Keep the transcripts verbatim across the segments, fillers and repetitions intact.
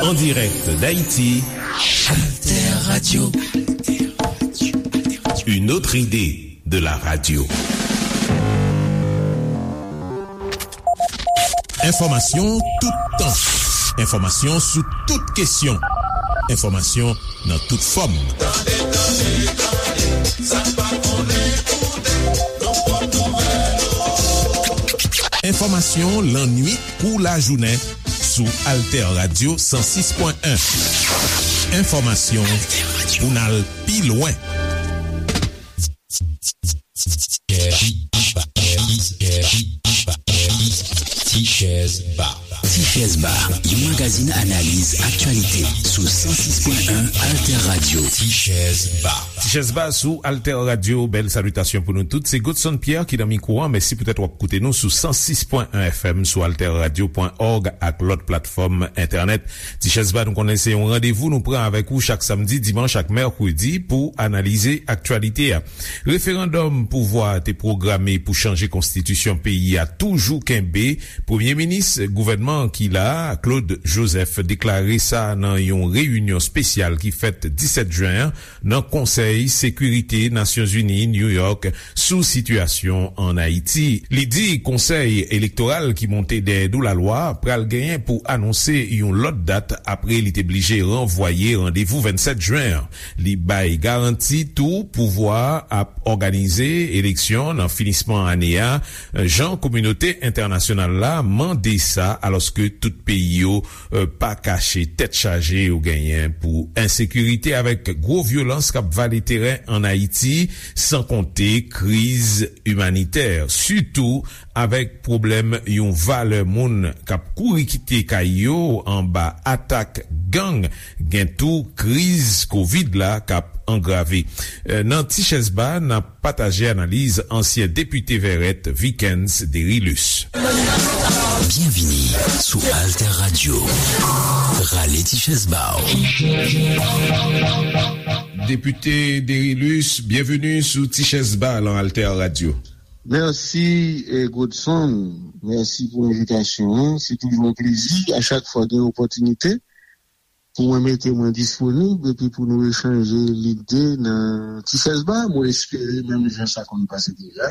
En direct d'Haïti, Alter Radio. Une autre idée de la radio. Enfòmasyon toutan. Enfòmasyon sou tout kesyon. Enfòmasyon nan tout fòm. Tande, tande, tande, sa n pa konnen koute, nou pot nouvèl. Enfòmasyon lannwit kou lajounen sou Alter Radio san sis pwen en. Enfòmasyon pou n al pi lwen. Tichèz Ba. Tichèz Ba, yon magazin analiz aktyalite sou san sis pwen en Alter Radio. Tichèz Ba. Tichèz Ba sou Alter Radio. Bèl salitasyon pou nou tout. Se Godson Pierre ki nan mikwo a. Mèsi poutèt w ap koute nou sou san sis pwen en F M, sou alter radio pwen org ak lòt platfòm entènèt. Tichèz Ba, nou konnen se yon randevou nou pran avèk ou chak samdi, dimanch ak mèkredi pou analize aktyalite a. Referandòm pouvwa a te pwograme pou chanje konstitisyon peyi a toujou kenbe. Premye minis gouvènman ki la a, Claude Joseph, deklare sa nan yon reyinyon espesyal ki fèt disèt jen an nan Konsèy Sekirite Nasyonzini, New York, sou sitiyasyon ann Ayiti. Li di konsèy elektoral ki monte dèyè do lalwa pral genyen pou anonse yon lòt dat apre li te blije ranvwaye randevou vennsèt jen an. Li bay garanti tou pouvwa a ap òganize eleksyon nan finisman ane a, jan kominote entènasyonal la mande sa, alòske tout peyi yo, eh, pa kache tèt chaje yo genyen pou ensekirite avèk gwo vyolans k ap vale teren ann Ayiti, san konte kriz imanitè, sitou avèk pwoblèm yon valè moun k ap kouri kite kay yo anba atak gang, gen tou kriz kovid la k ap angrave. Eh, nan Tichèz Ba, n ap pataje analiz ansyen depite Vèrèt, Vikens Derilus. Byenvini sou Alter Radio. Rale Tichèz Ba w. Depite Derilus, byenveni sou Tichèz Ba lan Alter Radio. Mèsi, eh, Godson. Mèsi pou envitasyon an. Se toujou yon plezi, a chak fwa gen opòtinite, pou mwen mete mwen disponib epi pou nou echanje lide nan Tichèz Ba. Mwen espere, menm jan sa konn pase deja,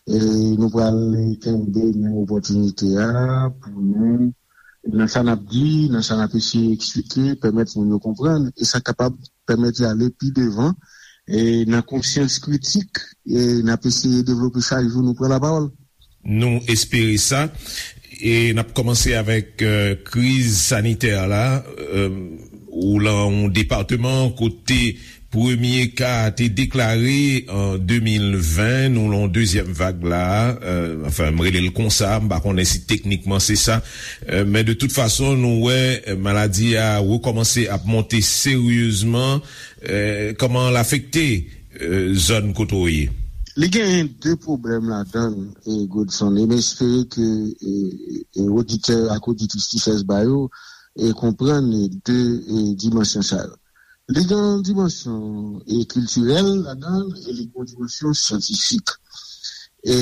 eh, nou pral kenbe menm opòtinite a pou nou, nan sa n ap di, nan sa n ap eseye eksplike, pèmèt moun yo konprann, e sa kapab pèmèt y ale pi devan, e nan konsyans kritik, e n ap eseye devlope chak jou nou pran lapawòl. Nou espere sa. E n ap kòmanse avèk, eh, kriz sanitè la. Eh, ou lan yon depatman kote premye ka a te deklare an de mil ven, nou lan yon dezyèm vag la. Eh, anfen, m rele l konsa, m pa konnen si teknikman se sa. Eh, men de tout fason, nou wè, eh, maladi a rekòmanse ap monte seryezman. Eh, kòman l afekte, eh, zòn kote w ye? Li genyen de pwoblèm ladan l, eh, Godson, e m espere ke, eh, eh, oditè ak oditris Tichèz Ba yo, eh, konprann, eh, de, eh, dimansyon sa yo. Li gen yon dimansyon, eh, kiltirèl ladan l, e li gen yon dimansyon syantifik. E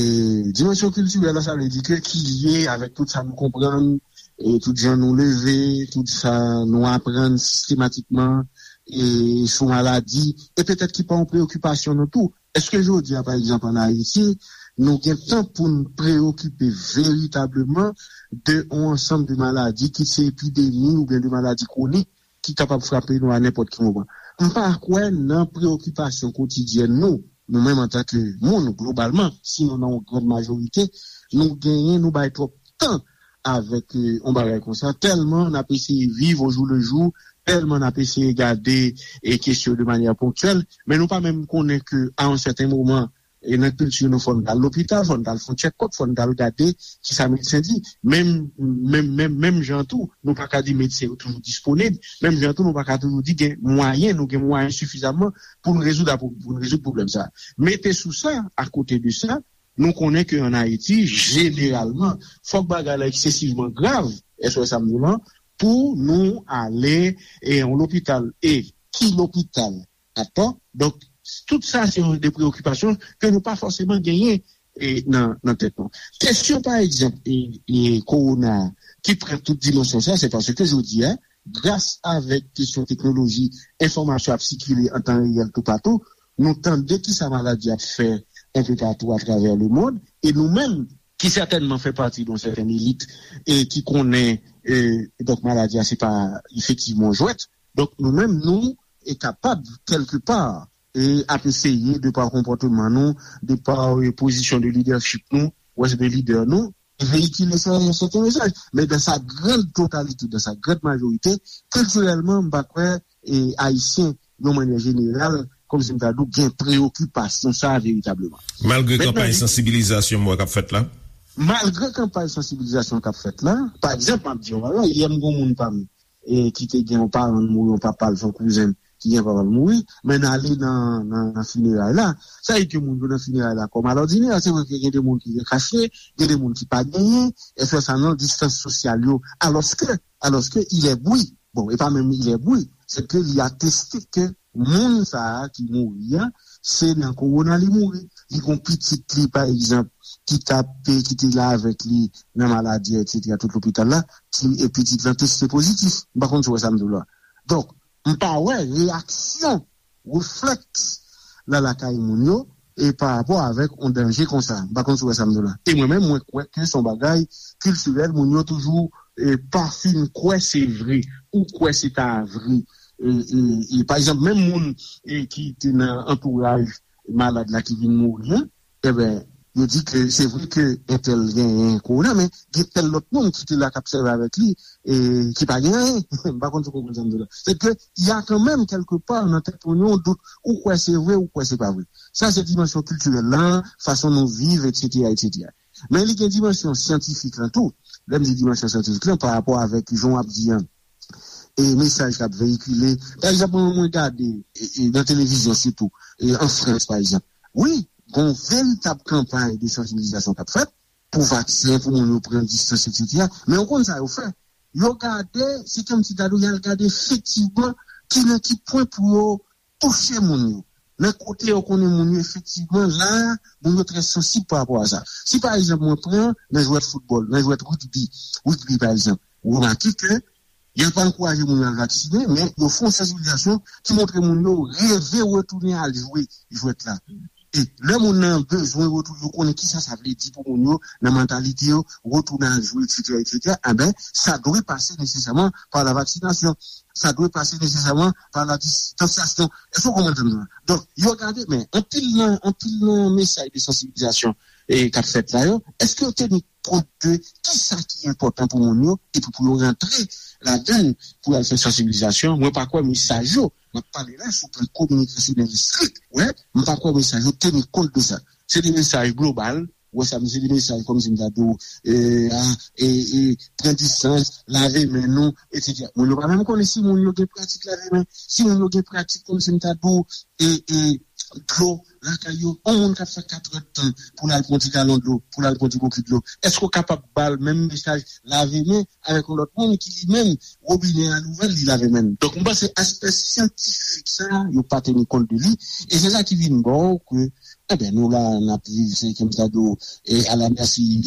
dimansyon kiltirèl la, sa vle di ke ki lye avèk tout sa nou konprann, e tout jan nou leve, tout sa nou aprann sistematikman, e sou maladi, e petèt ki pa yon preyokipasyon nou tou. Èske jodi a, pa egzanp, ann Ayiti, nou gen tan pou n preyokipe veritableman de yon ansanm de maladi, kit se epidemi oubyen de maladi kwonik, ki kapab frape nou a nenpòt ki moman? M pa kwè nan preyokipasyon kotidyèn nou, nou menm antanke moun, globalman, sinon nan yon gran majorite, nou genyen, nou bay twòp tan avèk, eh, yon bagay konsa, tèlman n ap eseye viv au jour le jour, tèlman n ap eseye gade, eh, kesyon de manyè ponktyèl, men nou pa menm konnen ke a yon sèten moman, e nan kilti nou, fò n t al lopital, fò n t al fè yon tchèkòp, fò n t al gade kisa medsen di. Menm, menm, menm, menm jan tou, nou pa ka di medsen yo toujou disponib. Menm jan tou, nou pa ka toujou di gen mwayen, nou gen mwayen sifizamman pou n rezoud, pou n rezoud pwoblèm sa a. Mete sou sa, akote de sa, nou konnen ke ann Ayiti, jeneralman, fòk bagay la eksesivman grav, èske w wè sa m di w lan, pou nou ale, e, yon lopital. E ki lopital? Atò. Donk, tout sa se yon de preyokipasyon ke nou pa fòseman genyen e, nan, nan tèt nou. Kesyon, pa egzanp, e, e, kowona a, ki pran tout dimansyon sa, se paske jodi a, gras avèk kesyon teknoloji, enfòmasyon ap sikile an tan reyèl toupatou, nou tande kisa maladi ap fè enpe patou atravè lemonn, e nou menm, ki sètènman fè pati de yon sètèn elit, e ki konnen, e, donk, maladi a, se pa efektivman yon jwèt. Donk, nou menm, nou, e kapab, kèlke pa, e ap eseye, de pa konpòteman nou, de pa, e, pozisyon de lidèchip nou, wè, de lidè nou, veyikile sa, yon sèten mesaj. Men dans sa grande totalité, dans sa grande majorité, kiltirèlman, m pa kwè, e, Ayisyen, yon mannyè jeneral, kòmsi m ta di w, gen preyokipasyon sa a veritableman. Malgre kanpay sansibilizasyon m wè k ap fèt la? Malgre kanpay sansibilizasyon k ap fèt la, pa egzanp, m ap di w, yè m gen yon moun pa m, e ki te gen yon paran l mouri, yon papa l, se yon kouzen m ki gen papa l mouri, men n ale nan, nan, nan fineray la. Sa vle di ke moun yo nan fineray la kòm alòdinè, se vre ke gen de moun ki rekache, gen de moun ki pa genyen, e fè sa nan distans sosyal yo, alòske, alòske il est bruit. Bon, e pa menm il est bruit, se ke li ateste ke moun sa a ki mouri a, se nan kowona li mouri. Li gon pitit li, pa egzanp, ki t ap, ki te la avèk li nan maladi a, etsetera, tout lopital la, ti, e pitit lan teste pozitif. M pa konn si w wè sa m di w la. Donk, m pa wè reyaksyon, reflèks la lakay moun yo, e pa rapò avèk yon danje konsa. M pa konn si w wè sa m di w la. E mwen menm, mwen kwè ke se yon bagay kiltirèl, moun yo toujou, e, pa fin kwè se vre, ou kwè se ta vre. E, e, e, pa egzanp, menm moun, e, ki te nan antouraj malad la ki vin mouri an, enben, yo di ke se vre ke entèl genyen kowona, men gen tèl lòt moun ki te la k ap sèvi avèk li, e ki pa gen anyen. M pa konn si w konprann sa m di w la. Se ke, y a kanmenm, kèlke pa, nan tèt moun yo, yon dout, ou kwè se vre, ou kwè se pa vre. Sa se dimansyon kiltirèl la, fason nou viv, etsetera, etsetera. Men li gen dimansyon syantifik lan tou. Lè m di dimansyon syantifik lan, pa rapò avèk jan w ap di an, e mesaj k ap veyikile. Pa egzanp, mwen, mwen gade, e, e, nan televizyon sitou, e, an Frans, pa egzanp. Wi, gon veritab kanpay de sansibilizasyon k ap fèt pou vaksen, pou moun yo pran distans, etsetera. Men ou konn sa yo fè? Yo gade, se kòmsi ta dwe y al gade efektivman ki nan ki pwen pou yo touche moun yo. Nan kote yo konnen moun yo efektivman la, moun yo trè sansib pa rapò a sa. Si pa egzanp mwen pran nan jwèt foutbòl, nan jwèt rigbi, rigbi pa egzanp, ou remake ke y ap ankouraje moun yo al vaksinen, men yo fè yon sansibilizasyon ki montre moun yo reve retounen al jwe jwèt la. E lè moun nan bezwen retounen, yo konnen kisa sa vle di pou moun yo, nan mantalite yo, retounen al jwe, etsetera, etsetera, enben, sa dwe pase nesesèman pa la vaksinasyon. Sa dwe pase nesesèman pa la distansyasyon. Èske w konprann sa m di w la? Donk, yo gade, men anpil nan, anpil nan mesaj de sansibilizasyon, e, k ap fèt la yo, èske yo teni kont de kisa ki enpòtan pou moun yo, epi pou yo rantre ladan l, pou y al fè sansibilizasyon? Mwen pa kwè mesaj yo, m ap pale la sou plan kominikasyonèl estrik, wè, m pa kwè mesaj yo teni kont de sa. Se de mesaj global, wè sa, se de mesaj kòmsi m ta di w, e, a, e, e, pran distans, lave men nou, etsetera. Moun yo pa menm konnen si moun yo gen pratik lave men, si moun yo gen pratik kòmsi m ta di w, e, e, dlo lakay yo. Yon moun k ap fè katrè tan pou l al pran ti galon dlo, pou l al pran ti bokit dlo, èske w kapab ba l menm mesaj lave men avèk yon lòt moun ki li menm, wobinè a louvè l, li lave men l? Donk, m panse aspè syantifik sa a, yo pa teni kont de li, e se sa ki vin ba w ke, enben, nou la, n ap viv, se kòmsi ta di w, e à la merci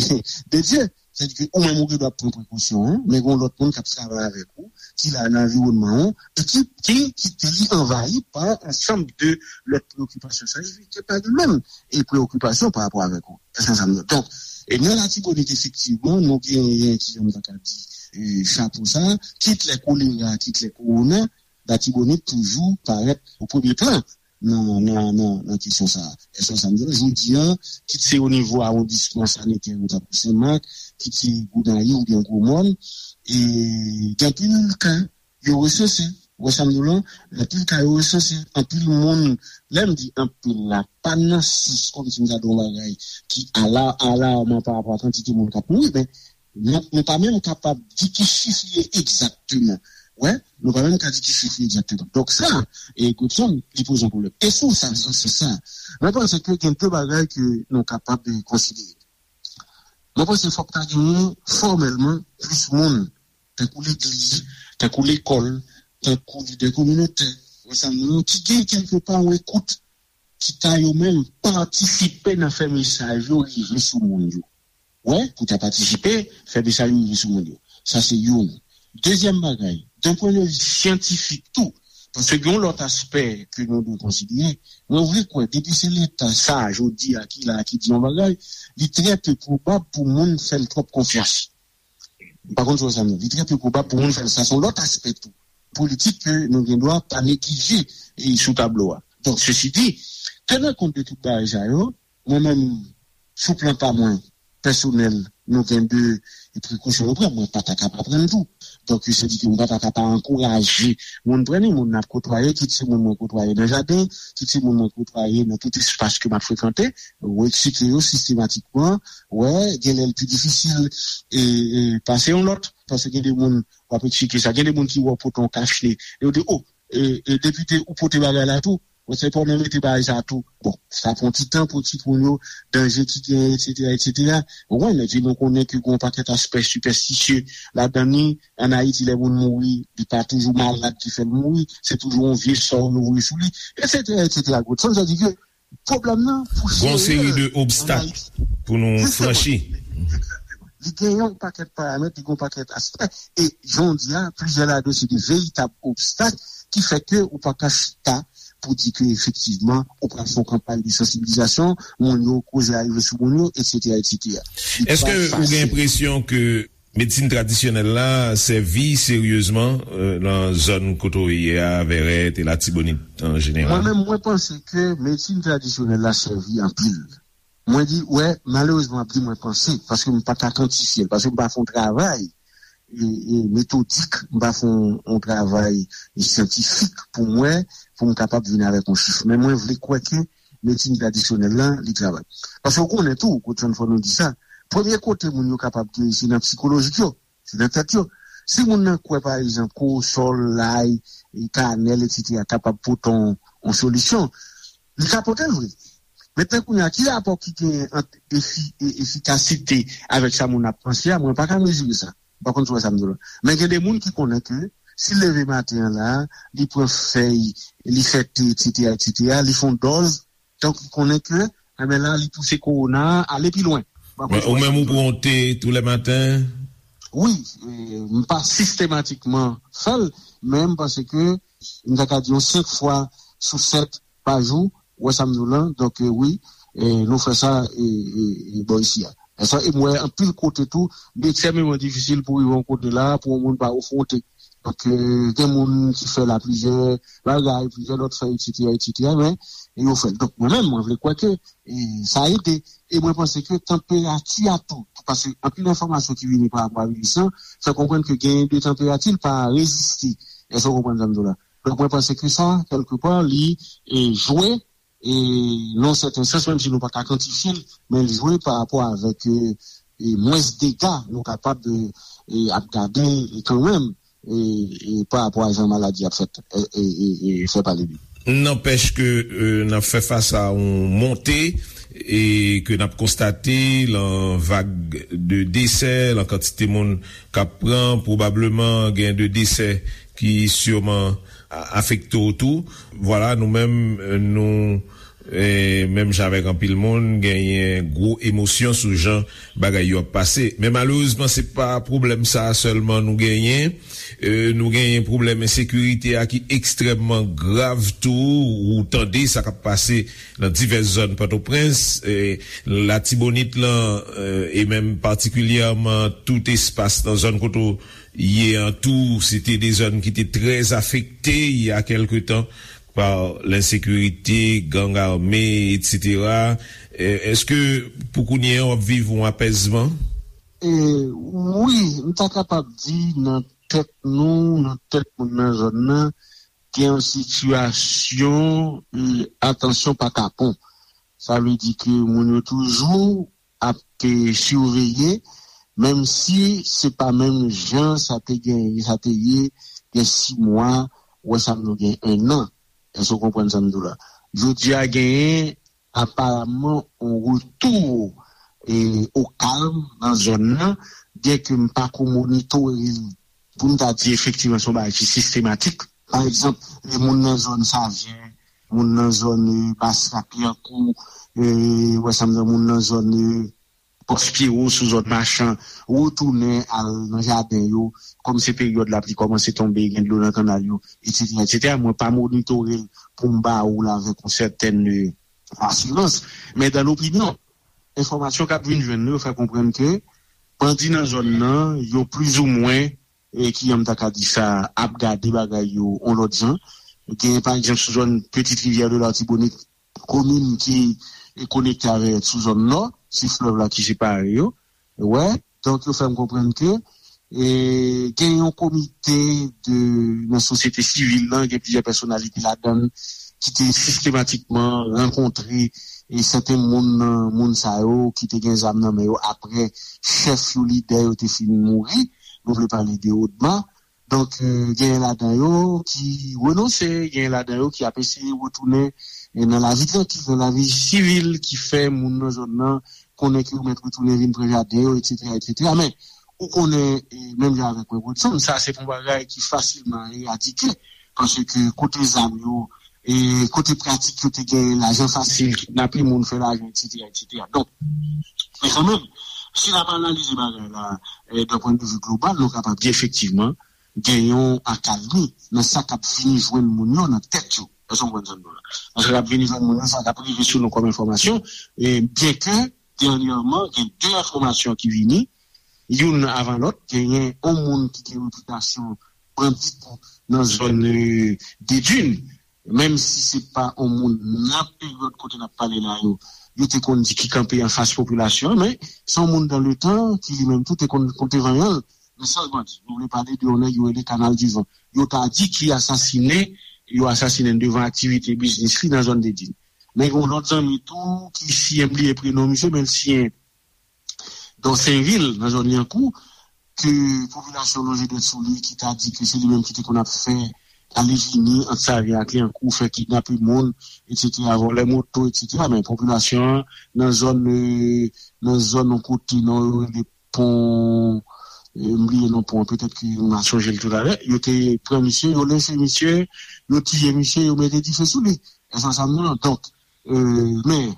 de Dieu. Sètadi ke ou menm ou gen dwa pran prekosyon, en, men gen lòt moun k ap travay avèk ou, ki la nan anviwònman ou, e ki, ki kite li anvayi pa ansanm de lòt preyokipasyon. Sa vle di ke pa li menm e preyokipasyon pa rapò avèk ou. Èske sa m di? Donk, e nan Latibonit, efektivman, nou genyen, ki jan m ta ka di, e, chapo sa, kit lè kolera, kit lè kowona, Latibonit toujou parèt o premye plan nan, nan, nan, nan kesyon sa a. Èske sa m di? Jodi a, kit se o nivo awondisman sanitè, nou ta pran Senmak, kit se Gonayiv oubyen Gwomòn, e gen anpil ka yo resanse. Ou wè sa m di w lan? Anpil ka yo resanse. Anpil moun, lè m di anpil la, pa nan sans kòmsi m ta di yon bagay ki ala, alarman pa rapò a kantite moun k ap mouri, men nou, nou pa menm kapab di ki chif li ye egzakteman. Wè, nou pa menm ka di ki chif li egzakteman. Donk sa, e Godson, li poze yon pwoblèm. E sou sa, sou sa, mwen panse ke gen de bagay ke nou kapab, e, konsidere. Mwen panse fòk ta genyen fòmèlman plis moun, tankou legliz, tankou lekòl, tankou lidè kominotè, ansanm moun ki gen kèlke pa yon ekout ki ta yo menm patisipe nan fè mesaj yo rive sou moun yo. Wè, pou ta patisipe, fè mesaj yo rive sou moun yo. Sa se youn. Dezyèm bagay, d'un point de vue syantifik tou, paske gen yon lòt aspè ke nou dwe konsidere, mwen vle kwè, depi se Leta sa, jodi a, ki la, ki di yon bagay, li trè pe pwobab pou moun fè l twòp konfyans. M pa konn si w wè sa m di. Li trè pe pwobab pou moun fè l. Sa se yon lòt aspè tou politik ke nou gen dwa pa neglije e sou tablo a. Donk, sesi di, tenan kont de tout bagay sa yo, mwen menm, sou plan pa mwen, pèsonèl, nou gen de prekosyon nou pran. Mwen pa ta ka pa pran l tou. Donk, se di ke mwen pa ta ka pa ankouraje moun pran li, moun n ap kotwaye, kit se moun mwen kotwaye nan jaden, kit se moun mwen kotwaye nan tout espas ke m ap frekante, ou eksite yo sistematikman, wè, gen lè l pi difisil e, e pase yon lòt, paske gen de moun w ap eksplike sa, gen de moun ki wè w pote yon kach ne, yo di, o, e, e, depite, ou pote bagay la tou, ou se pa w nan mete bagay sa tou. Bon, sa pran ti tan pou timoun yo, danje ki genyen, etsetera, etsetera. Ou konprann, epi nou konnen ke gen yon pakèt aspè sipèstisye ladan li. Ann Ayiti, lè moun mouri, li pa toujou malad ki fè l mouri, se toujou yon vye sò yo voye sou li, etsetera, etsetera. Sa vle di ke pwoblèm nan pou jere l ann Ayiti. Gon seri de obstak pou nou franchi. Egzakteman. Li gen yon pakèt paramèt, li gen yon pakèt aspè. E jan w di a, plizyè ladan yo se de veritab obstak ki fè ke ou pa ka chita pou di ke efektivman ou pral fè yon kanpay de sansibilizasyon, moun yo koze a rive sou moun yo, etsetera, etsetera. Èske ou gen enpresyon ke medsin tradisyonèl la sèvi seryezman euh, nan zòn kote w ye a, Vèrèt e Latibonit an jeneral? Mwen menm, mwen panse ke medsin tradisyonèl la sèvi anpil. Mwen di, wè, malerezman, m ap di mwen panse, paske m pa ka kantifye l, paske m pa fè yon travay e, e metodik, m pa fè yon, yon travay e syantifik pou mwen, pou m kapab vin avèk yon chif. Men mwen vle kwè ke medsin tradisyonèl la, li travay. Paske w konnen tou, Godson, fò nou di sa, premye kote moun yo kapab geri, se nan sikolojik yo, se nan tèt yo. Si moun nan kwè, pa egzanp, kowosòl, lay, e kanèl, etsetera, kapab pote yon, yon solisyon, li ka pote l vre. Mentnan kounye a, ki rapò ki genyen ant efi, e, efikasite avèk sa moun ap panse a? Mwen pa ka mezire sa. M pa konn si w wè sa m di w la. Men gen de moun ki konnen ke si l leve maten an la, li pran fèy, li fè te, etsetera, etsetera, li fè yon dòz, donk li konnen ke, enben la, li pouse kowona a ale pi lwen. M pa konn si w wè sa m di w la. Ou menm ou pran te tou lè maten? Wi, e, m pa sistematikman fè l, men m panse ke m ta ka di yon senk fwa sou sèt pa jou, ou wè sa m di w lan, donk, e, wi, e, nou fè sa, e, e, e, bò isi a. E sa, e m wè anpil kote tou, li ekstrèmeman difisil pou rive yon kote la, pou yon moun pa ofri w te. Donk, e, gen moun ki fè l a plizyè bagay, plizyè lòt fè, etsetera, etsetera, men, e yo fè l. Donk, mwen menm, mwen vle kwè ke, e, sa ede. E mwen panse ke tanperati a tou, paske anpil enfòmasyon ki vini pa rapò a viris lan, fè konprann ke genyen de tanperati, l pa reziste. Èske w konprann sa m di w la? Donk, mwen panse ke sa, kèlkepa, li, e, jwe, e, nan yon sèten sans, menm si nou pa ka kantifye l, men li jwe pa rapò avèk, e, e, mwens dega nou kapab, e, e, ap gade, e, kanmenm, e, e, pa rapò a jan maladi ap fèt, e, e, e, e, fè pale de li. Nanpèch ke, e, n ap fè fas a yon monte, e ke n ap konstate lan vag de desè, lan kantite moun k ap pran, pwobableman gen de desè ki siman a-, afekte w tou. Vwala, nou menm, nou, e, menm jan avèk anpil moun, genyen gwo emosyon sou jan bagay yo ap pase. Men malerezman, se pa pwoblèm sa a sèlman nou genyen. E, nou genyen pwoblèm ensekirite a ki ekstrèmman grav tou. Ou tande sa k ap pase nan divès zòn Pòtoprens, e, Latibonit lan, e, e menm patikilyèman tout espas nan zòn kote w ye an tou, se te de zòn ki te trè afekte il y a quelque temps par l'insécurité, gang armé, etsetera. E, èske pou kounye a w ap viv yon apèzman? E, wi, m ta kapab di nan tèt nou, nan tèt moun nan zòn nan, gen yon sitiyasyon, e, atansyon pa kapon. Sa vle di ke moun yo toujou ap, e, siveye, menm si se pa menm jan sa te gen, sa te ye gen sis mwa, ou wè sa nou gen en an. Èske w konprann sa m di w la? Jodi a genyen aparamman yon retou, e, o kalm nan zòn nan, byenke m pa ko monitore l pou m ta di efektivman se yon bagay ki sistematik. Pa egzanp, e, moun nan zòn Savyen, moun nan zòn, eh, Bas Rak Lyankou, eh, wè sa m di, moun nan zòn, eh, Pòs Pyewo, sou zòn Machan, retounen al nan jaden yo, kòm se peryòd lapli kòmanse tonbe, gen dlo nan kannal yo, etsetera, etsetera. Mwen pa monitore l pou m ba ou l avèk yon sètèn, eh, asirans. Men dan lopinyon, enfòmasyon k ap vin jwenn nou yo fè konprann ke bandi nan zòn nan, yo plizoumwen, e ki, an m ta ka di sa, ap gade bagay yo yon lòt jan. Gen, pa egzanp, sou zòn Petite Rivière de l'Artibonite, komin ki konekte avè sou zòn nò, se flèv la ki separe yo. Wè, donk yo fè m konprann ke, e, gen yon komite de, nan sosyete sivil lan, gen plizyè pèsonalite ladan l ki te sistematikman rankontre, e, sèten moun nan moun sa yo ki te gen zam nan men yo apre chèf yo, lidè yo te fin mouri. Nou vle pale de ODMA. Donk, eh, genyen ladan yo ki renonse, genyen ladan yo ki ap eseye retounen, eh, nan lavi trankil, nan lavi sivil, ki fè moun nan zòn nan konnen ke yo mèt retounen vin pran jaden yo, etsetera, etsetera. Men, ou konnen, eh, menm jan avèk mwen, Godson, sa se pa yon bagay ki fasilman eradike, paske kote zam yo, e kote pratik yo te gen lajan fasil, kidnape moun, fè lajan, etsetera, etsetera. Donk, men kanmenm, si n ap analize bagay la, eh, d'un point de vue global, nou kapab di efektivman, gen yon akalmi nan sa k ap vini jwenn moun yo nan tèt yo. Èske w konprann sa m di w la? Nan sa k ap vini jwenn moun yo, sa k ap rive sou nou kòm enfòmasyon, e byenke dènyèman, gen de enfòmasyon ki vini, youn avan lòt, genyen yon moun ki gen repitasyon bandi nan zòn, eh, Dedin, menm si se pa yon moun nan peryòd kote n ap pale la yo, yo te konn di ki kanpe anfas popilasyon an, men se yon moun dan letan ki li menm tou te konn pote vanyan l. Men sa l bandi, nou vle pale de yon nèg yo rele Kanal di Van. Yo ta di ki asasinen, yo asasinen devan aktivite biznis li nan zòn Dedin. Men gen yon lòt zanmi tou ki siyen, m bliye prenon misye, men l siyen Donsenvil, nan zòn Lyankou, ke popilasyon lonje dwèt sou li, ki ta di ke se li menm ki te konn ap fè ale vini ant Savyen ak Lyankou, fè kidnape moun, etsetera, vòlè moto, etsetera. Men popilasyon an, nan zòn, eh, nan zòn yon kote, non, yo rele pon, eh, m bliye non pon an, petèt ke m a sonje l toutalè, yo te pran misye, yo lenche misye, yo tiye misye, yo mete dife sou li. Èske w konprann sa m di w lan? Donk, eh, men,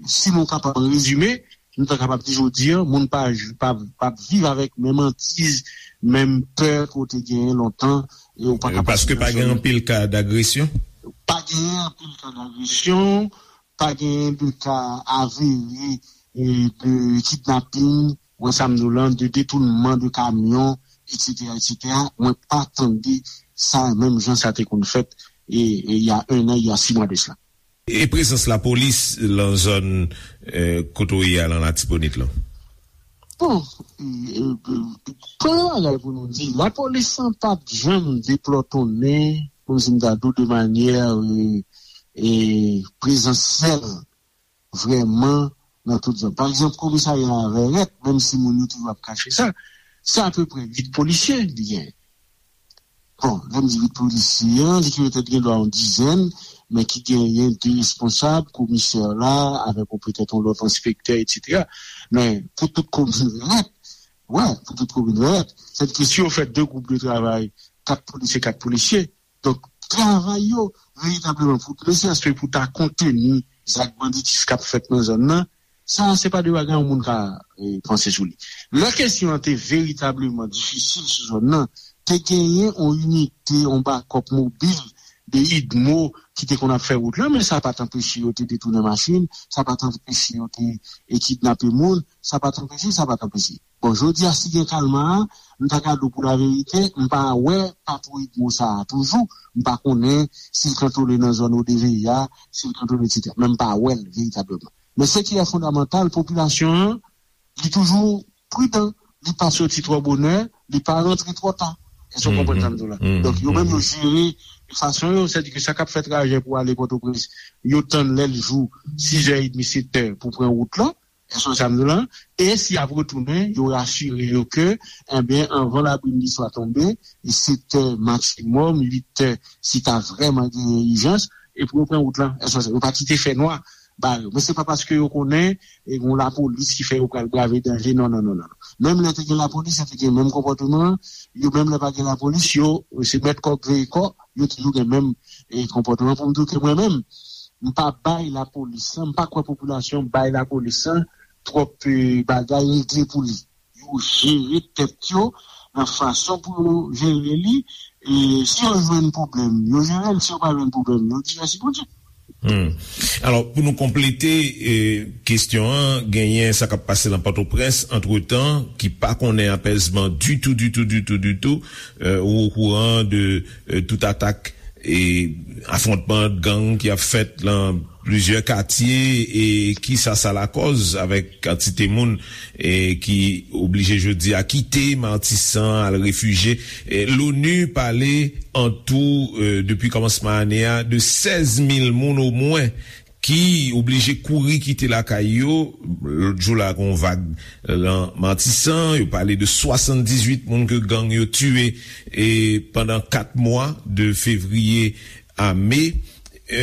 si nou kapab rezime, nou ta kapab di jodi a, moun pa, pa, pa viv avèk menm antiz, menm pè ke w te genyen lontan, e w pa kapab... Paske pa gen anpil ka dagresyon? Pa gen anpil ka dagresyon, pa gen de ka avere, e, de kidnaping, wè sa m di w lan, de detounman de kamyon, etsetera, etsetera. Mwen pa tande sa menm jan sa te konn fèt, e, e, il y a un an, il y a six mois de cela. E prezans lapolis lan zòn, eh, kote w ye a lan Latibonit lan? Bon, eh, eh, premye bagay pou nou di, lapolis lan pa t janm deplòtonnen, kòmsi m ta di w, de manyè, eh, eh, prezansyèl vrèman nan tout zòn. Pa egzanp, komisarya a Vèrèt, menm si moun yo toujou ap kache sa, se apeprè uit polisye li genyen. Bon, lè m di uit polisye an, li ki petèt gen dwa yon dizèn, men ki genyen de responsab, komisè la, avèk yon petèt yon lòt enspektè, etsetera. Men pou tout komin Vèrèt, wè, pou tout komin Vèrèt, sètadi si yo fè de gwoup de travay, kat polisye, kat polisye, donk, travay yo, veritableman, pou, ne serait-ce que pou ta konteni zak banditis k ap fèt nan zòn nan, sa, se pa de bagay yon moun ka, eh, panse sou li. Lè kesyon an te veritableman difisil sou zòn nan, te genyen yon inite, yon bakòp mobil de idmo ki te konn ap fè wout lan, men sa pa t anpeche yo te detounen machin, sa pa t anpeche yo te, eh, kidnape moun, sa pa t anpeche, sa pa t anpeche. Bon, jodi a, si gen kalma a, m ta ka di w pou laverite, m pa wè patwouy idmo sa a toujou. M pa konnen si l kantone nan zòn O D V I a, si l kantone, etsetera. Men m pa wè l veritableman. Men se ki lè fondamantal, popilasyon an, li toujou pridan. Li pa soti twò bonè, li pa rantre twò ta. Èske w konprann sa m di w la? Donk, yo menm, yo jere fason yo, sètadi ke sa k ap fè trajè pou ale Pòtoprens, yo tann lè l jou, sizè edmi, setè pou pran wout lan. Èske w sa m di w la? E si y ap retounen, yo rasire yo ke, enben, anvan labrimniswa tonbe, e setè maksimòm, uitè, si ta vrèman genyen ijans, epi yo pran wout lan. Èske w sa, yo pa kite fènwa ba yo. Men se pa paske yo konnen e gen lapolis ki fè yo pral brave danje. Non, non, non, non. Menm lè te gen lapolis, yo te gen menm konpòteman an. Yo menm lè pa gen lapolis, yo se mèt kòk veye kò, yo toujou gen menm e, konpòteman. Pou m di w ke mwen menm, m pa bay lapolis lan, m pa kwè popilasyon bay lapolis lan twòp e, bagay regle pou li. Yo jere tèt yo nan fason pou yo jere li. E si yo jwenn pwoblèm, yo jere l. Si yo pa jwenn pwoblèm, yo di mèsi Bondye. Hmm. Alò, pou nou konplete eh, kesyon an, genyen sa k ap pase nan Pòtoprens antretan, ki pa konnen apèzman ditou, ditou, ditou, ditou. Eh, ou okouran de eh, tout atak e afwontman gang ki ap fèt lan plizyè katye e kisa sa lakòz avèk kantite moun e ki oblije jodi a kite Matisan al refijye. E Loni pale an tou e, depi kòmansman ane a de sèz mil moun omwen ki oblije kouri kite lakay yo. Lòt jou la gen yon vag lan Matisan, yo pale de swasanndizuit moun ke gang yo tiye e pandan kat mwa de fevriye a me. E,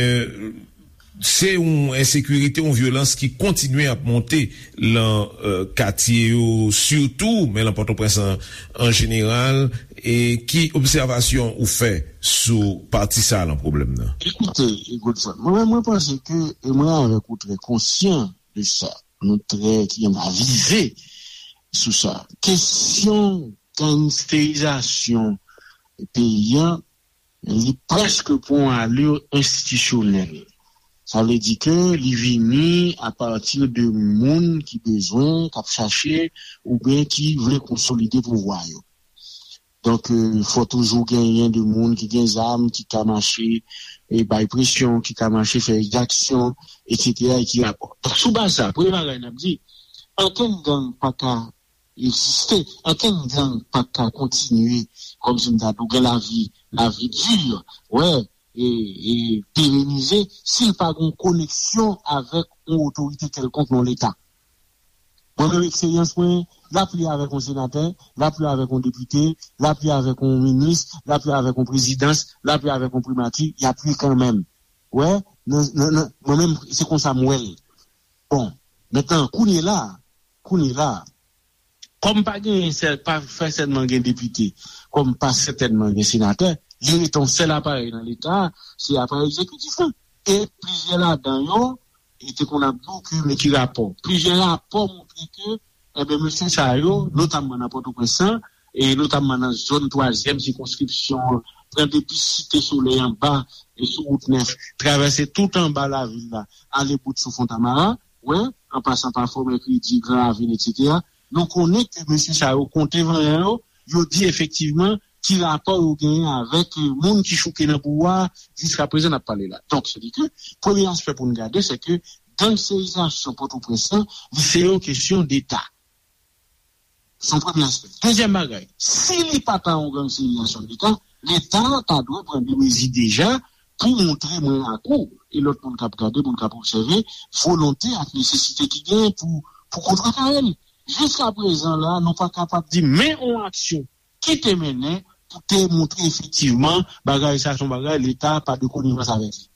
se yon ensekirite, yon vyolans ki kontinye ap monte lan e, katye yo sitou, men lan Pòtoprens an, an jeneral. E ki obsèvasyon ou fè sou pati sa a lan pwoblèm nan? Ekoute, Godson, mwen, mwen panse ke, e mwen avèk ou trè konsyan de sa, nou trè ki avize sou sa. Kesyon gangsterizasyon peyi an, li prèske pran yon alè enstitisyonèl. Sa vle di ke li vini apati de moun ki bezwen, k ap chache, oubyen ki vle konsolide pouvwa yo. Donk, e, fò toujou genyen de moun ki gen zam, ki ka mache e bay presyon, ki ka mache fè egzaksyon, etsetera, e ki rapò. Donk, sou baz sa, premye bagay n ap di, ankenn gang pa ka egziste, ankenn gang pa ka kontinye, kòmsi m ta di w, gen lavi, lavi di, wè, e, e perenize, si l pa gen yon koneksyon avèk yon otorite kèlkonk nan Leta. Mwen menm, eksperyans mwen, l ap ye avèk yon senatè, l ap ye avèk yon depite, l ap ye avèk yon minis, l ap ye avèk yon prezidans, l ap ye avèk yon primati, y ap ye kanmenm. Wè, nan, nan, nan, mwen menm, se konsa m wè l. Bon, mentnan, kounye la, kounye la, kòm pa genyen sèl, pa fè sèlman gen depite, kòm pa sètènman gen senatè, li rete yon sèl aparèy nan Leta a, se aparèy egzekitif lan. E plizyè ladan yo, e te konn ap di w ke men ki rapò. Plizyè rapò montre ke, enben, mesye sa yo, notamman nan Pòtoprens lan, e notamman nan zòn twazyèm sikonskripsyon an, pran depi Site Solèy anba, e sou wout nèf, travèse tout anba lavil la, ale bout sou Fontamara, wè, an pasan pa Fò Mèkredi, Gran Ravin, etsetera. Nou konnen ke mesye sa yo konte vanyan yo, yo di efektivman ki rapò yo genyen avèk eh, moun ki chouke nan pouvwa a, jiska prezan n ap pale la. Donk, se di ke premye aspè pou n gade, se ke gangsterizasyon Pòtoprens lan, li se yon kesyon deta. Se yon premye aspè. Dezyèm bagay, si li pa ta yon gangsterizasyon deta, Leta ta dwe pran de mezi deja pou montre mwen ak ou, e lòt moun k ap gade, moun k ap obsève, volonte ak nesesite ki genyen pou, pou kontrekare l. Jiska prezan la, nou pa kapab di men yon aksyon ki te mennen pou te montre efektivman bagay sa se yon bagay Leta pa de konivans avèk li.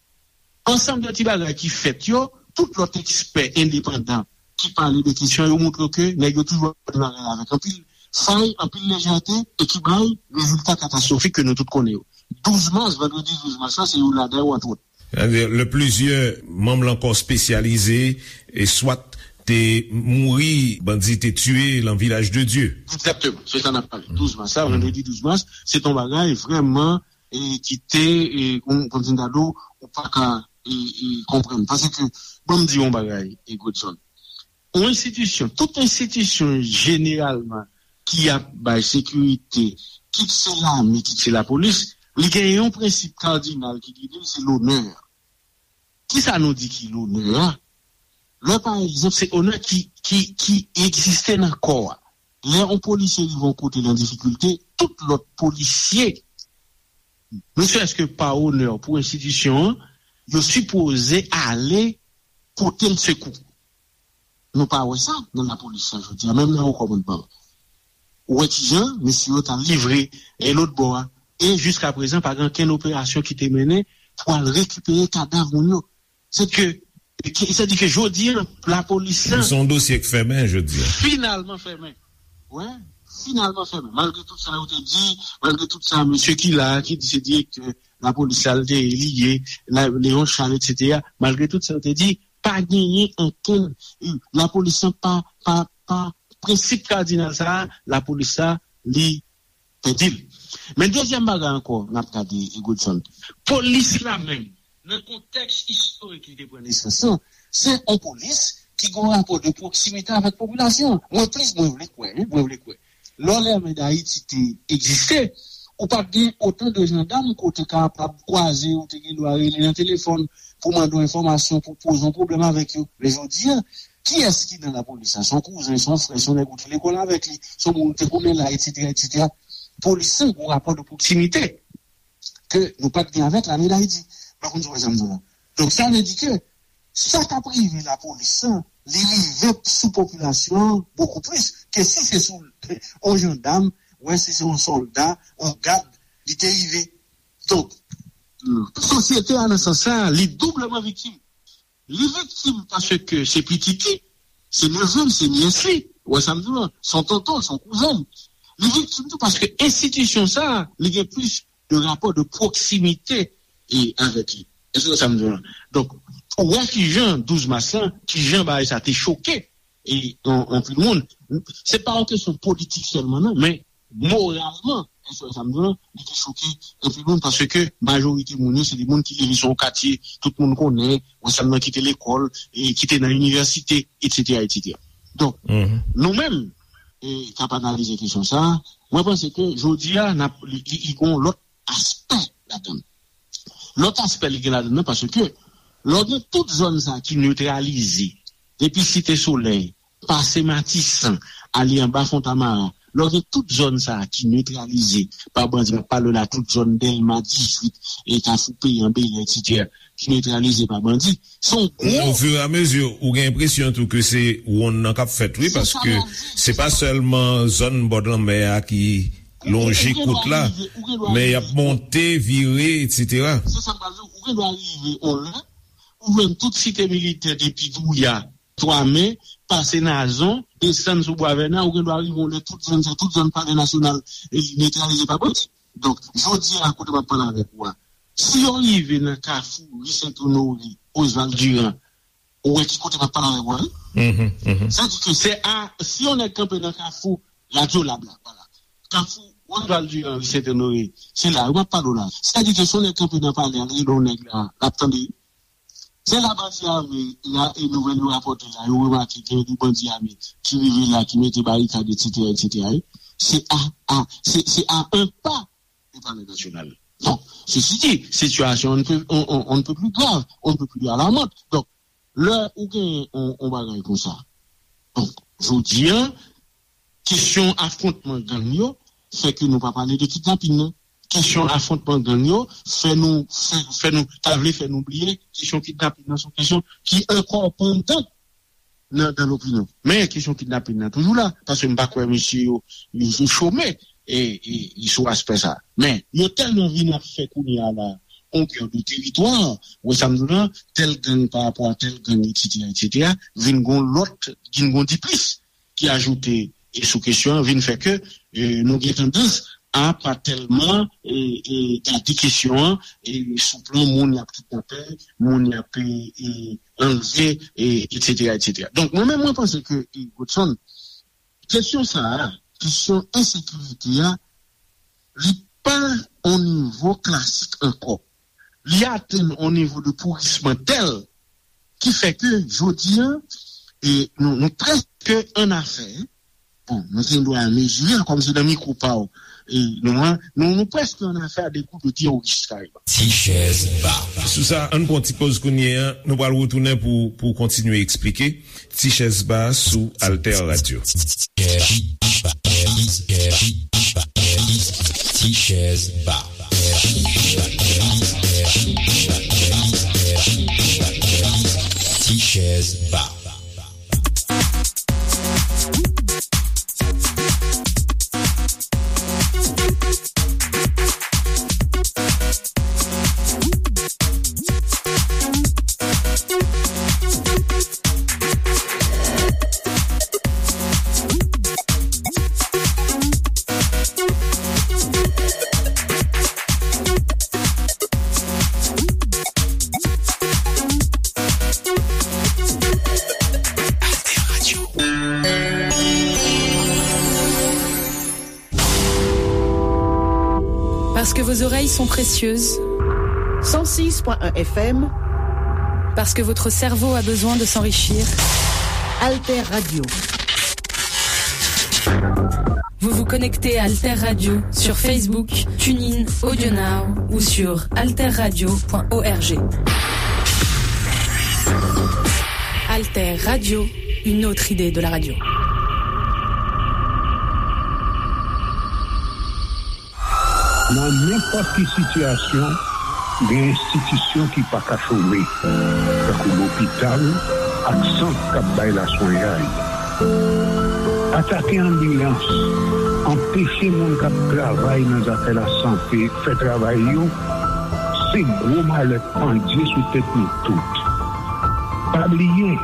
Ansanm de ti bagay ki fèt yo, tout lòt ekspè endepandan ki pale de kesyon yo montre ke nèg yo toujou ap fè bagay avèk anpil fay, anpil lejète e ki bay rezilta katastwofik ke nou tout konnen yo. Douz mas, vandredi douz mas la, se youn ladan yo, antwòt. Sètadi, lè plizyè manm lan kò espesyalize e swat te mouri, bandi te tiye lan Vilaj de Dye. Egzakteman, se sa n ap pale. Douz mas la, vandredi douz mas, se t on bagay vrèman e ki te, e, kon, kòmsi m ta di w, ou pa ka e, e, konprann. Paske, ban m di w yon bagay, e, Godson. Yon enstitisyon, tout enstitisyon jeneralman ki ap bay sekirite, kit se lame, kit se lapolis, li gen yon prensip kadinal ki gide l, se lonè. Kisa nou di ki lonè a? Lè, pa egzanp, se onè ki, ki, ki egziste nan kò a. Lè yon polisye rive yon kote l an difikilte, tout lòt polisye, ne serait-ce que par honneur pou enstitisyon an, yo sipoze ale pote l sekou. Nou pa wè sa nan lapolis la jodi a, menm nan wo kòmandman. Ou wè kijan mesye yo t al livre e lòt bò a. E jiska prezan, pa gen okenn operasyon ki te mennen pou al rekipere kadav moun yo. Se ke Ki, sa di ke jodi a, lapolis la. Se yon dosye k fèmen jodi a. Finalman fèmen. Wi, finalman fèmen. Malgre tout sa yo te di, malgre tout sa, mesye ki la, ki di se direktè lapolis la, l te ye, li ye, la, Léon Charles, et cetera. Malgre tout sa yo te di, pa genyen ankenn, lapolis la pa, pa, pa, prensip kadinal sa a, lapolis la, li pèdi l. Men dezyèm bagay ankò, n ap gade, Godson. Polis la menm, nan kontèks istorik li te pran nesans lan, se yon polis ki gen yon rapò de pwoksimite avèk popilasyon. Mwen plis, mwen vle kwè, wi, mwen vle kwè. Lè Lame Dayiti te egziste, ou pa t gen otan de jandam ke w te kapab kwaze, ou te gen dwa rele nan telefòn pou mande yon enfòmasyon, pou poze yon pwoblèm avèk yo. Men jodi a, kiyès ki nan lapolis la? Se yon kouzen, se yon frè, se yon nèg ou te lekòl avèk li, se yon moun ou te konnen la, et cetera, et cetera. Polis la gen yon rapò de pwoksimite ke nou pa t gen avèk Lame Dayiti. M pa konn si w wè sa m di w la. Donk, sa vle di ke sa k ap rive lapolis la, li rive sou popilasyon an bokou plis ke si se sou yon jandam, wè si se yon sòlda, yon gad, li te rive. Donk, sosyete a nan sans sa, li doubleman viktim. Li viktim paske se pitit li, se neve l, se nyès li, ou wè sa m di w lan, se yon tonton l, se yon kouzen l. Li viktim tou paske enstitisyon sa a, li gen plis de rapò de pwoksimite e, avèk li. Èske w wè sa m di w lan? Donk, ou wè kijan douz mas lan, kijan bagay sa te choke e, an, anpil moun. Se pa yon kesyon politik sèlman, non, men moralman, èske w wè sa m di w lan, li te choke anpil moun paske majorite moun yo, se de moun ki leve sou yon katye, tout moun konnen, ou wè sa m nan ki te lekòl, e ki te nan inivèsite, et cetera, et cetera. Donk, nou menm, e, k ap analize kesyon sa a, mwen panse ke jodi a, n ap, li, li, li gen yon lòt aspè ladan l. Lòt aspè li gen ladan l nan, paske lè w gen tout zòn sa a ki netralize, depi Site Solèy, pase Matisan, ale anba Fontamara, lè w gen tout zòn sa a ki netralize pa bandi, m ap pale w la, tout zòn Dèlma dizuit, e Kafou Peyan, Bèlè, et cetera, ki netralize pa bandi, se yon gwo... Ofiramezi, ou gen enpresyon tou ke se wonn nan k ap fèt, wi, paske se pa sèlman zòn bò lanmè a ki lonje kout la, men y ap monte, vire, et cetera. Se sa m pral di w, ou gen dwa rive yon lè, ou jwenn tout Site Militè depi Douya, Twamen, pase Nazon, desann sou Bwa Vèna, ou gen dwa rive yon lè tout zòn sa, tout zòn Palè Nasyonal, e, netralize pa bandi. Donk, jodi a, kote m ap pale avèk ou a, si yo rive nan Kafou, ri Sent Onore, Oswald Durand, ou wè ki kote m ap pale avèk ou a, wi. Sa di ke se a, si yon nèg kanpe nan Kafou Radyo Lab la, vwala. Kafou Oswald Durand, ri Sent Onore, se la, wi, m ap pale w la. Sa di ke si yon nèg kanpe nan palè a, l rele yon nèg la, l ap tande. Se la bandi ame la, e nouvèl yo rapòte la, yo remake gen de bandi ame ki rive la, ki mete barikad, et cetera, et cetera, wi. Se a, a, se, se a un pas de Palais National. Bon, ceci dit, situation on ne peut, on, on, on ne peut plus grave, on ne peut plus alarmante. Donk, lè ou gen yon, yon bagay konsa, donk, jodi a, kesyon afwontman gang yo fè ke nou pa pale de kidnapin nan. Kesyon afwontman gang yo fè nou, fè, fè nou, ta vle fè nou bliye kesyon kidnapin nan, se yon kesyon ki ankò pandan nan, nan lopinyon. Men kesyon kidnapin nan toujou la, paske m pa kwè mesye yo, yo, yo chome, e, e, e sou aspè sa. Men yo tèlman vin ap fè kounye a la, yon gè de teritwa, ou wè sa m di w lan, tèl gang pa rapò a tèl gang, et cetera, et cetera, vin gon lòt, vin gon diplis ki ajoute, e, sou kesyon an, vin fè ke, e, nou gen tandans a pa tèlman, e, e, gade kesyon an, e, sou plan moun y ap kidnape, moun y ap, e, e, anlve, e, et cetera, et cetera. Donk, mwen menm, mwen panse ke, e, Godson, kesyon sa a, kesyon ensekirite a, li pa on nivo klasik ankò. Li atenn on nivo de pourisman tèl ki fè ke jodi a, e, nou, nou prèske annafè. Bon, nou gen dwa mezire l kòm se nan mikwo pa w, e, nou an, nou, nou prèske annafè a de gwoup de teworis kareman. Ti chèz ba. Sou sa, ann pran ti poz kounye a, nou pral retounen pou, pou kontinye eksplike. Ti chèz ba sou Alter Radio. Ti chèz ba. Ti chèz ba. Parce que vos oreilles sont précieuses. Cent six point un F M. Parce que votre cerveau a besoin de s'enrichir. Alter Radio. Vous vous connectez à Alter Radio sur Facebook, TuneIn, AudioNow ou sur alterradio point org. Alter Radio, une autre idée de la radio. Nan nenpòt ki sitiyasyon, gen enstitisyon ki pa ka chome, tankou lopital ak sant k ap bay laswenyay. Atake anbilans, anpeche moun k ap travay nan zafè lasante fè travay yo, se gwo malè pandye sou tèt nou tout. Pa bliye,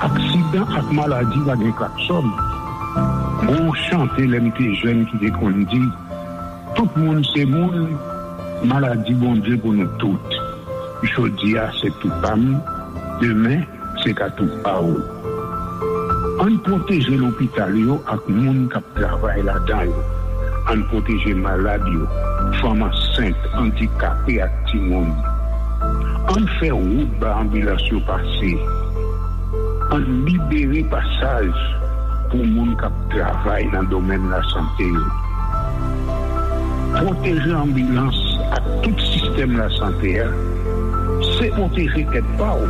aksidan ak maladi pa gen klaksòn. Gon chante lè m te jèn ki te konn di, tout moun se moun, maladi Bondye pou nou tout. Jodi a se tou pa m, demen se ka tou pa w. Ann pwoteje lopital yo ak moun k ap travay ladan yo. Ann pwoteje malad yo, fanm ansent, andikape ak timoun. Ann fè wout ba anbilans yo pase. Ann libere pasaj pou moun k ap travay nan domèn lasante yo. Pwoteje anbilans ak tout sistèm lasante a, se pwoteje tèt pa w.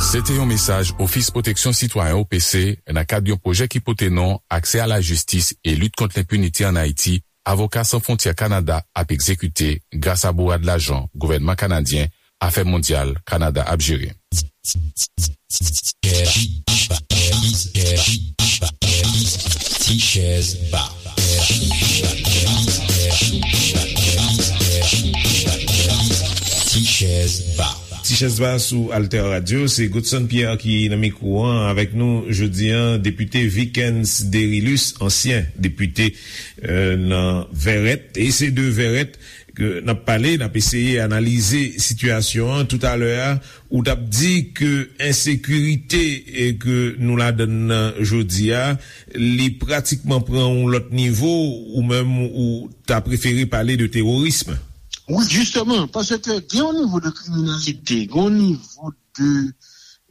Se te yon mesaj Ofis Pwoteksyon Sitwayen, O P C, nan kad yon pwojè ki pote non Aksè a la jistis e lit kont lenpinite ann Ayiti, Avoka San Fwontyè Kanada ap egzekite gras a bourad lajan gouvènman kanadyen Afè Mondyal Kanada ap jere. Ti chèz ba. Ti chèz ba. Ti chèz ba sou Alter Radio, se Godson Pierre ki nan mikwo an avèk nou jodi an, depite Vikens Derilus, ansyen depite nan Vèrèt, e se de Vèrèt ke n ap pale, n ap eseye analize sitiyasyon an. Toutalè a, ou t ap di ke ensekirite ke nou ladann nan jodi a, li pratikman pran yon lòt nivo, ou menm ou ta prefere pale de teworism. Wi, jisteman, paske gen yon nivo de kriminalite, gen yon nivo de,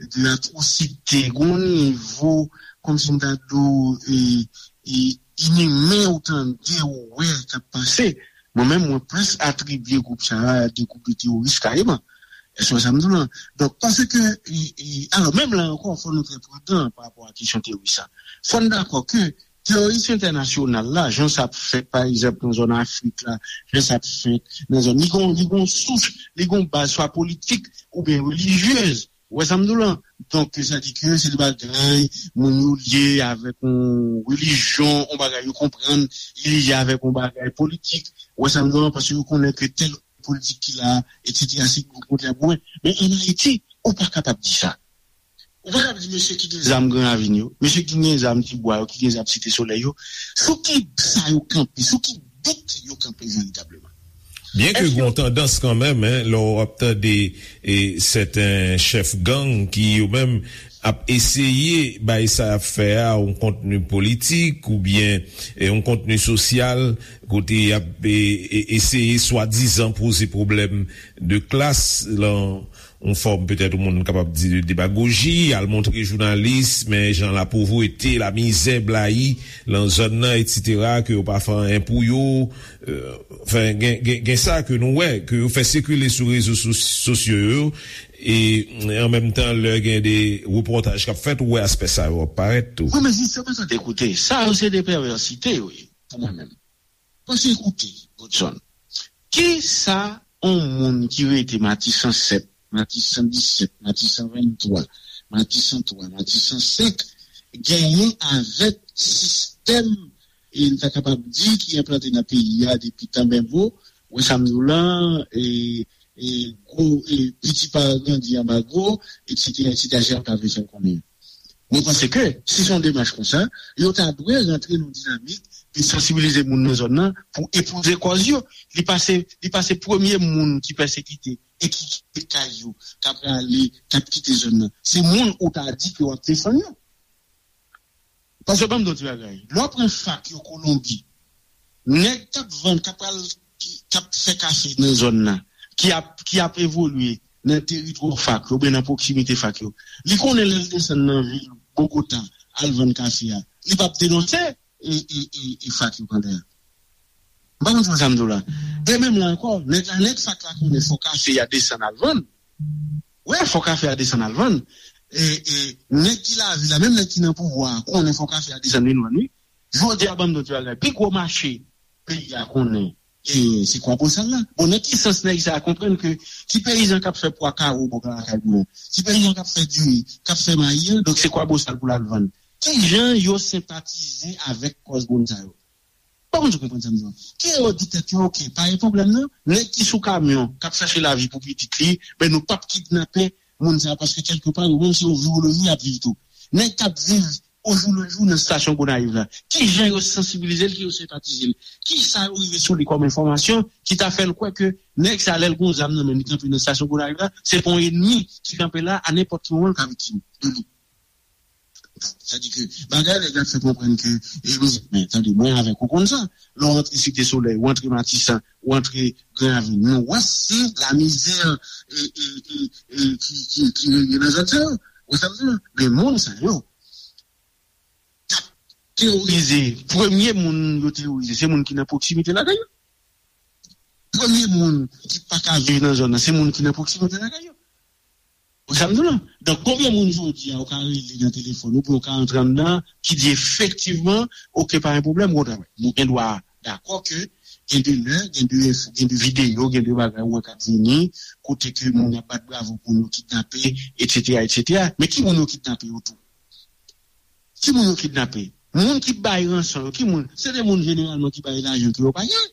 de atwosite, gen yon nivo, kòmsi m ta di w, e, e, inimen ou tande, ou wè k ap pase. Mwen menm, mwen plis atribye gwoup sa a de gwoup de teworis kareman. Èske w wè sa m di w lan? Donk, paske, e, e, alò, menm la ankò, fò nou trè pridan pa rapò a kesyon teworis sa. Fò n dakò ke teworis entènasyonal la, jan sa ap fèt, pa egzanp, nan zòn Afrik la, jan sa ap fèt nan zòn, li gon, li gon sous, li gon baz swa politik oubyen relijyez. Ou wè sa m di w lan? Donk, sa di ke se de bagay, moun yo lye avèk yon relijyon, yon bagay yo konprann, li lye avèk yon bagay politik. Ou wè sa m di w lan? Paske yo konnen ke tèl politik ki la, etsetera, se gwoup kont la goumen. Men ann Ayiti, ou pa kapab di sa. Ou pa kapab di mesye ki gen zam Gran Ravin yo, mesye ki gen zam Tibwa yo, ki gen zam Site Solèy yo, sou ki sa yo kanpe, sou ki bout yo kanpe veritableman. Byenke gen yon tandans kanmenm, en, lè w ap tande e, sèten chèf gang ki yo menm ap eseye bay sa y ap fè a yon kontni politik oubyen e, yon kontni sosyal, kote y ap e, e, eseye swadizan poze pwoblèm de klas lan yon fòm petèt yon moun kapab di de demagoji, al montre jounalis men jan lapovrete, lamizè blayi lan zòn nan, etsetera, ke yo pa fè anyen pou yo. Anfen, gen, gen, gen sa ke nou wè, ke yo fè sikile sou rezo sosyo yo, e an menm tan, lè gen de repòtaj k ap fèt, ou wè aspè sa yo ap parèt tou. Wi, men jisteman, tande, koute, sa yo se de pèvèsite yo ye, pou mwen menm. Paske, koute, Godson, kisa yon moun ki rete Matisan sèt, Matisan disèt, Matisan venntwa, Matisan twa, Matisan senk genyen avèk sistèm, e n ta kapab di, ki enplante nan peyi a depi tan benbo, wè sa m di w lan, e, e gwo, e piti pa grandi anba gwo, etsetera, etsetera, jan yo ta vle fè l konnen. Mwen panse ke, si se yon demach konsa, yo ta dwe rantre nan yon dinamik de sansibilize moun nan zòn nan pou epouze kòz yo. Li pa se, li pa se premye moun ki pèsekite e ki kite kay yo, k ap rale, k ap kite zòn nan. Se moun ou ta di ke w ap defann yo. Paske ban m di w ti bagay. Lè w pran fak yo Kolonbi, Nèg k ap vann, k ap pral, k ap fè kafe nan zòn nan, ki ap, ki ap evolye nan teritwa fak yo, oubyen nan pwoksimite fak yo, li konnen lè l desann nan vil Bogota al vann kafe a, li p ap denonse e, e, e, e fak yo pandan. M pa konn si w wè sa m di w la. E menm la ankò, nèg la, nèg fak la konnen fò kafe a desann al vann. Wi, fò kafe a desann al vann. E, e nèg ki lavil la, menm nèg ki nan pouvwa a, konnen fò kafe a desann vin vann, wi. Jodi a, ban m di w ti bagay. Pi gwo mache peyi a konnen, e, se Kwabosal la. Bon, nan ki sans nèg sa a konprann ke ti peyizan k ap fè pwa kawo bò lakay mwen, ti peyizan k ap fè diri, k ap fè mayi an, donk se Kwabosal pou l al vann. Ki jan yo senpatize avèk kòz moun sa yo? Bon, moun yo konprann sa m di yo. Ki yo di tèt yo, oke, pa gen pwoblèm non. Nèg ki sou kamyon, k ap chache lavi pou pitit li, ben nou p ap kidnape moun sa a, paske kèlkepa, yo menm se yon viroloji y ap viv tou. Nèg k ap viv ojoulejou nan estasyon Gonayiv la, ki jan yo sansibilize l, ki yo senpatize l, ki sa yo rive sou li kòm enfòmasyon ki ta fè l kwè ke nèg sa, lè l gon zam nan men l, li kanpe nan estasyon Gonayiv la, se pa yon ènmi ki kanpe la, a nenpòt ki moman l ka viktim de li. Sa di ke bagay nèg la fè konprann ke, e, men, tande, mwen avèk ou konn sa. Lè w antre Site Solèy, w antre Matisan, w antre Gran Ravin, nou wè se lamizè, e, e, e, e, ki, ki, ki reye nan zòn sa yo. Ou sa m di la? Men moun sa yo, k ap teworize, premye moun yo teworize, se moun ki nan pwoksimite lakay yo. Premye moun ki pa ka viv nan zòn nan, se moun ki nan pwoksimite lakay yo. Ou sa m di w la? Donk, konbyen moun jodi a ou ka rele nan telefòn ou, oubyen ou ka antre anndan, ki di efektivman, oke, pa gen pwoblèm, bon travay. Nou gen dwa dakò ke gen de lè, gen de enfo, gen de videyo, gen de bagay ou wè k ap vini, kote ke moun ap bat bravo pou yo kidnape, etsetera, etsetera. Men ki moun yo kidnape yo tou? Ki moun yo kidnape? Moun ki bay ranson yo, ki moun? Se de moun jeneralman ki bay lajan ke yo pa gen.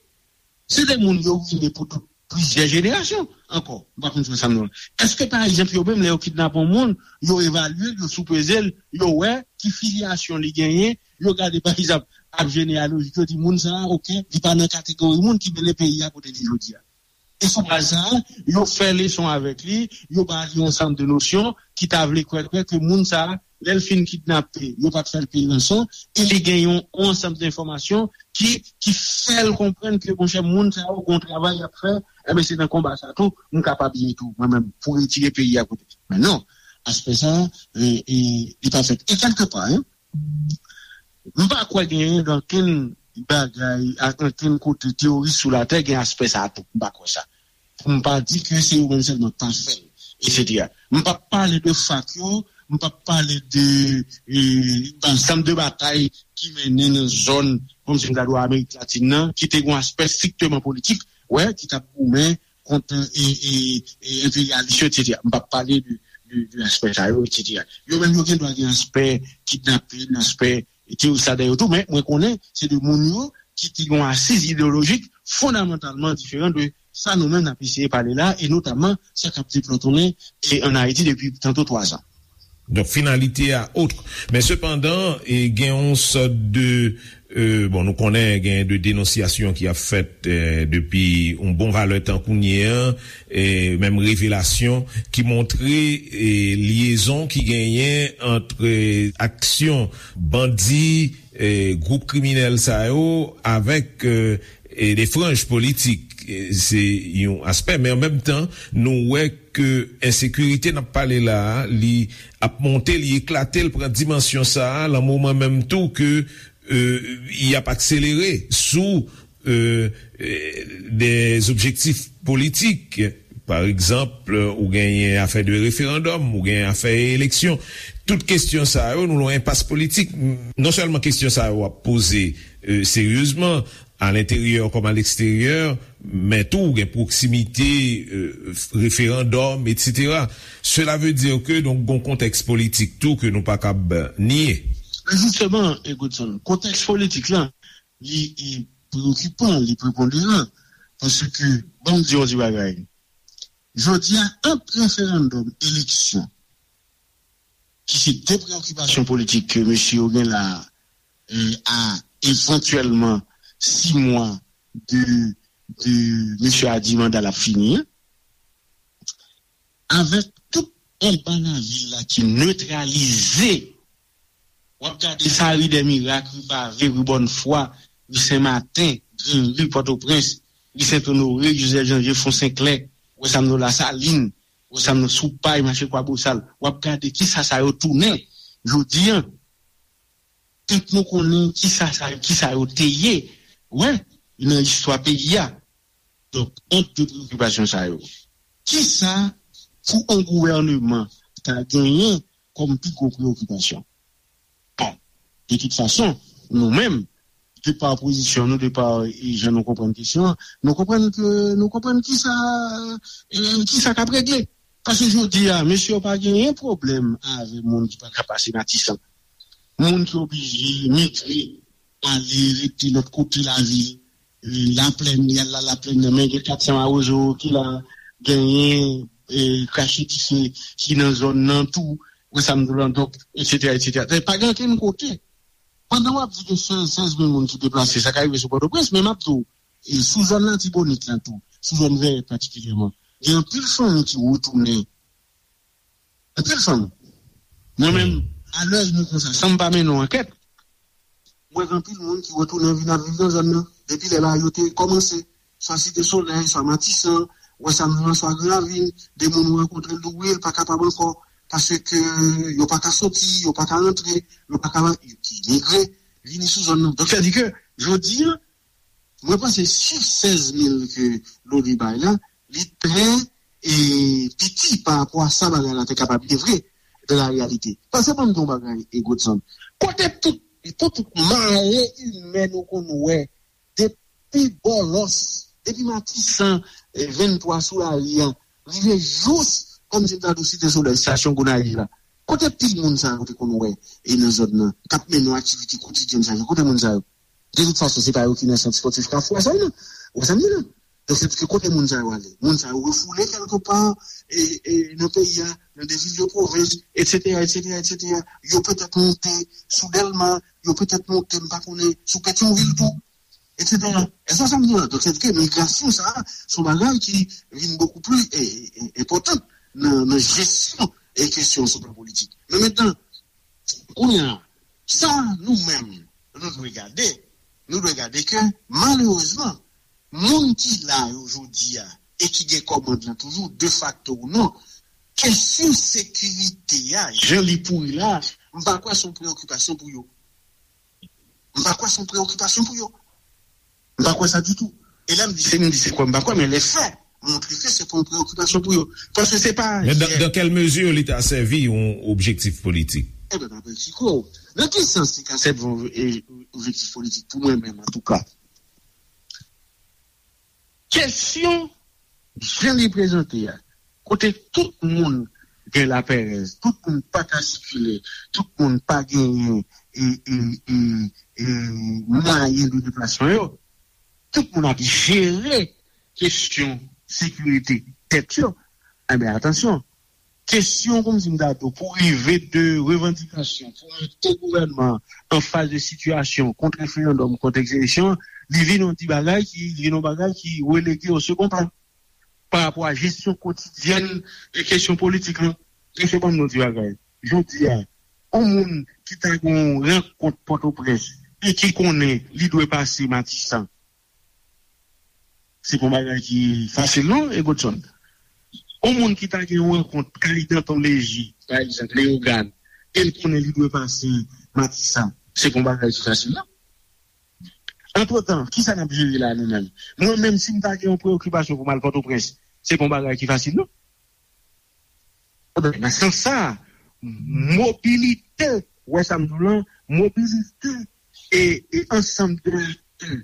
Se de moun yo rine pou tout plizyè jenerasyon ankò. M pa konn si w wè sa m di w la. Èske, pa egzanp, yo menm, lè yo kidnape yon moun, yo evalye l, yo soupeze l, yo wè ki filyasyon li genyen, yo gade, pa egzanp, ap jeneyalojik, yo di moun sa a, oke, li pa nan kategori moun ki mennen peyi a kote li jodi a. E sou baz sa a, yo fè leson avèk li, yo ba li yon ansanm de nosyon ki ta vle kwè, kwè ke moun sa a, lè l fin kidnape, yo pa t fè l peye ranson, e li gen yon, yon ansanm de enfòmasyon ki, ki fè l konprann ke, monchè, moun sa yo gon travay y ap fè, enben, se nan konba sa tou, m kapab ye tou, mwen menm, pou retire peyi a kote. Men non, aspè sa a, e, e, li pa fèt. E kèlkepa, en, m pa kwè genyen nan okenn bagay, ak okenn kote teyori sou latè gen aspè sa a tou. M pa kwè sa. Pou m pa di ke se yo menm sèlman k pa fè l, etsetera. M p ap pale de fak yo, m p ap pale de, e, ansanm de batay ki mennen nan zòn, kòmsi m ta di w Amerik Latin nan, ki te gen yon aspè strikteman politik, wè, ki t ap goumen kont, e, e, e, enperyalis yo, etsetera. M p ap pale de, de, de aspè sa yo, etsetera. Yo menm, yo gen dwa gen aspè kidnapin, aspè teyoris ladan yo tou, men mwen konnen se de moun yo ki te gen yon asiz ideyolojik fondamantalman diferan de sa nou menm n ap eseye pale la, e notamman sa k ap deplòtonnen, e, ann Ayiti depi tanto twa zan. Donk, finalité a autre. Men sepandan, e, gen yon sòt de, e, bon, nou konnen gen de denonsyasyon ki ap fèt, e, depi yon bon valè tan kounye a, e, menm revelasyon ki montre, e, lyezon ki genyen ant, e, aksyon bandi, e, gwoup kriminèl sa yo avèk, e, e de franj politik. E, se yon aspè, men an menm tan, nou wè ke ensekirite n ap pale la a, li ap monte, li eklate, li pran dimansyon sa a, lan moman menm tou ke, e, y ap akselere sou, e, e, de objektif politik. Pa egzanp, ou genyen afè de referandòm, ou genyen afè eleksyon. Tout kesyon sa yo, nou lan enpas politik. Non sèlman kesyon sa yo ap poze, e, seryezman, a lenteryè kòm a leksteryè, men tou gen pwoksimite, e, referandòm, etsetera. Cela veut dire que, donk, gon kontèks politik tou ke nou pa kab nye. Men jisteman, e, Godson, kontèks politik la, li, e, preokipan, li preponderan, paske, ban m di yon ti bagay. Jodi a, ant referandòm, eleksyon, ki se de preokipasyon politik ke mesye yo gen la, e, a evantyèlman sis mwa de, de mesye a di manda l ap fini an, avèk tout anba lavil la ki netralize, w ap gade sa ri dè mirak, ri pave, ri bòn fwa, ri Senmaten, Granri, Pòtoprens, ri Sentonore, Jozèf Janvye, Fon Senklè, wè sa m di w, Lasalin, wè sa m di w, Soupay, mache Kwabosal. W ap gade kisa sa yo tounen jodi a. Tank nou konnen kisa sa, kisa yo te ye, wè, nan istwa peyi a. Donk, ant de preyokipasyon sa yo, kisa pou yon gouvèneman ta genyen kòm pi gwo preyokipasyon? Bon, de tout fason, nou menm, de pa pozisyon nou, de pa, e, jan nou konprann kesyon an, nou konprann ke, nou konprann kisa, e, kisa k ap regle. Paske jodi a, mesye yo pa genyen pwoblèm avè moun ki pa ka pase Matisan. Moun ki oblije migre, ale rete lòt kote lavil, e, Laplèn, y al la Laplèn nan, men gen kat san mawozo ki la, genyen, e, krache dife ki nan zòn nan tou, wè sa m di w lan, donk, etsetera, etsetera. Pa gen ankenn kote. Pandan w ap di gen sèz, sèz mil moun ki deplase, sa ka rive sou Pòtoprens, men m ap di w, e, sou zòn Latibonit lan tou, sou zòn Vèyè patikilyèman, gen anpil fanmi ki retounen. Anpil fanmi. Mwen menm, alèz mwen konsa, san m pa mennen yon ankèt, mwen wè anpil moun ki retounen vin ap viv nan zòn nan. Depi lè bagay yo te kòmanse, swa Site Solèy, swa Matisan, wè sa m di w lan, swa Gran Ravin, de moun ou rankontre l, ou wè l pa kapab ankò, paske yo pa ka soti, yo pa ka rantre, yo pa ka, ki migre, vini sou zòn nan. Donk, sa di ke, jodi a, mwen panse chif sèz mil ke Loni bay la, li trè, e, piti pa rapò a sa bagay la te kapab ye vre, de la reyalite. Paske ban m di yon bagay, e, Godson, kote tout, tout mare imè nou konn wè, depi Bòlòs, depi Matisan, e, venntwa sou lari a, rive jous, kòm si m ta di w Site Solèy, estasyon Gonayiv la. Kote pil moun sa yo te konn wè, e, nan zòn nan, k ap mennen yon aktivite kotidyèn sa yo? Kote moun sa yo? De tout fason, se pa yo ki nan sant espòtif Kafou a sa yo, non. Ou sa m di la? Donk, se ke kote moun sa yo ale? Moun sa yo refoule kèlke pa, e, e, nan peyi a, nan de vil de pwovens, etsetera, etsetera, etsetera. Yo petèt monte sou Dèlma, yo petèt monte, m pa konnen, sou Petyonvil tou, etsetera. Èske w sa m di la? Donk, se ke migrasyon sa a, se yon bagay ki vin bokou pli, e, e, enpòtan nan, nan jesyon e kesyon sou plan politik. Men mentnan, kounye a, sa nou menm, nou dwe gade, nou dwe gade ke, malerezman, moun ki la yo jodi a, e ki gen kòmand lan toujou, defakto ou non, kesyon sekirite a, jan li pouri la, m pa kwè se yon preyokipasyon pou yo. M pa kwè se yon preyokipasyon pou yo. M pa kwè sa ditou. E lè m di se, m di se kwè m pa kwè, men lè fè montre ke se pa yon preyokipasyon pou yo. Paske se pa Men dans, dans quelle mesure li ta sèvi yon objektif politik? Ebyen, m ap eksplike w. Nan ki sans li ka sèvi yon, e, objektif politik pou mwen menm, antouka? Kesyon jan li prezante a, kote tout moun gen lapèrèz, tout moun pa ka sikile, tout moun pa genyen, e, e, e, e, mwayen de deplasman yo, tout moun ap jere kesyon sekirite tèt yo. Enben, atansyon, kesyon, kòm si m ta di w, pou rive de revandikasyon, pou mete gouvènman an fas de sitiyasyon kont referandòm, kont eleksyon, li vin yon ti bagay ki, li vin yon bagay ki relege o second plan pa rapò a jesyon kotidyèn de kesyon politik lan. Mesye, ban m di yon ti bagay. Jodi a, yon moun ki ta gen yon rankont Pòtoprens e ki konnen li dwe pase Matisan, se pa yon bagay ki fasil, non, e Godson? Yon moun ki ta gen yon rankont kay Danton Leji, pa egzanp, Leyogàn, e l konnen li dwe pase Matisan, se pa yon bagay ki fasil, non. Antretan, kisa n ap jere la, nou menm? Mwen menm, si m ta gen yon preyokipasyon pou m al Pòtoprens, se pa yon bagay ki fasil, non. Nan sans sa, mobilite, wè sa m di w lan, mobilite e, e ansanm de aktè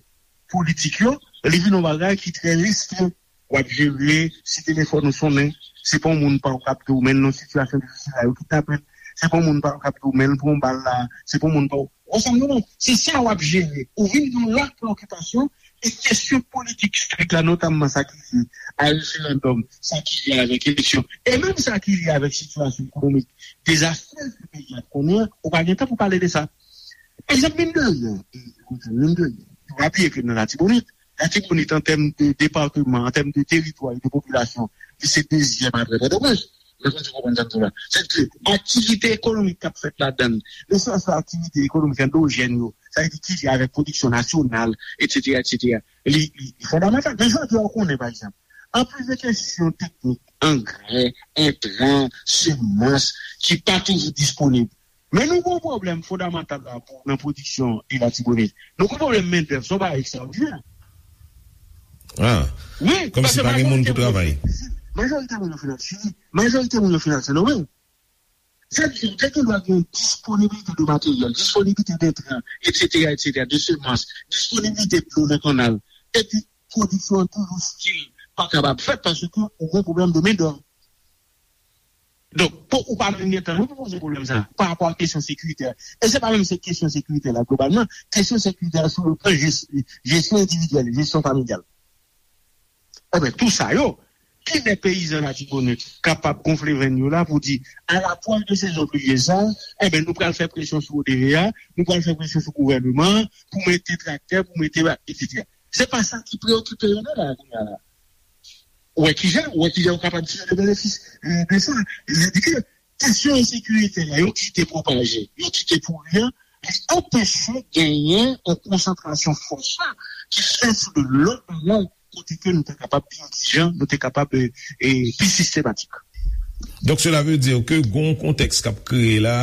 politik yo, li vin yon bagay ki trè restren. W ap jere si telefòn ou sonnen, se pa yon moun pa w k ap di w men l nan sitiyasyon difisil la, yo kidnape l, se pa yon moun pa w k ap di w men l pran bal la, se pa yon moun pa w, w wè sa m di w lan, se sa w ap jere. Ou vin gen yon lòt preyokipasyon, e kesyon politik strik la, notamman sa ki lye a referandòm, sa ki lye avèk eleksyon, e menm sa ki lye avèk sitiyasyon ekonomik dezastrèz ke peyi a konnen an, ou pa gen tan pou pale de sa. Egzanp, mine de rien, mine de rien, nou raple ke nan Latibonit, Latibonit, an tèm de depatman, an tèm de teritwa e de popilasyon, li se dezyèm apre Pòtoprens. Mwen konn konprann sa m di w la. Sètadi ke aktivite ekonomik k ap fèt ladan l, nesesite aktivite ekonomik andojèn yo, sa vle di ki lye avèk pwodiksyon nasyonal, etsetera, etsetera. Li, li, li fondamantal. Men jodi a, ou konnen, pa egzanp, anplis de kesyon teknik, angrè, entran, semans, ki pa toujou disponib. Men nou gen yon pwoblèm fondamantal la pou, nan pwodiksyon Ilatibonit. Nou gen yon pwoblèm mendèv, se yon bagay ekstraòdinè. Ah, wi, kòmsi pa gen moun pou travay. Majorite moun yo fin al Chili. Majorite moun yo fin al Sendomeng. Sa vle di, ou te gen dwa gen disponibilite de materyèl, disponibilite de entran, etsetera, etsetera, de semans, disponibilite dlo nan kannal. Epi, pwodiksyon an toujou still pa kapab fèt paske ou gen pwoblèm de mendèv. Donk, pou ou pa menm gen tan, nou pou poze pwoblèm sa, pa rapò a kesyon sekiritè. E se pa menm se kesyon sekiritè la, globalman, kesyon sekiritè la sou le plan jes-, jesyon endividyèl, jesyon familyal. Enben, tou sa yo, kilè peyizan Latibonit kapab gonfle venn yo la pou di, a lapwòch de sezon plivyez la, enben, nou pral fè presyon sou O D V A, nou pral fè presyon sou gouvènman an, pou mete traktè, pou mete ba-, etsetera. Se pa sa ki preokipe yo nan la, kounye a la. Ou wè kijan, ou wè kijan yo kapab tire de benefis, eh, de sa. Sa vle di ke kesyon ensekirite la, yo kite pwopaje, yo kite pouri an, li anpeche genyen yon konsantrasyon fòs la ki fèt sou de lòt bagay kote ke nou te kapab pi egzijan, nou te kapab, eh, eh, pi sistematik. Donk, sela ve di ke gon kontèks k ap kreye la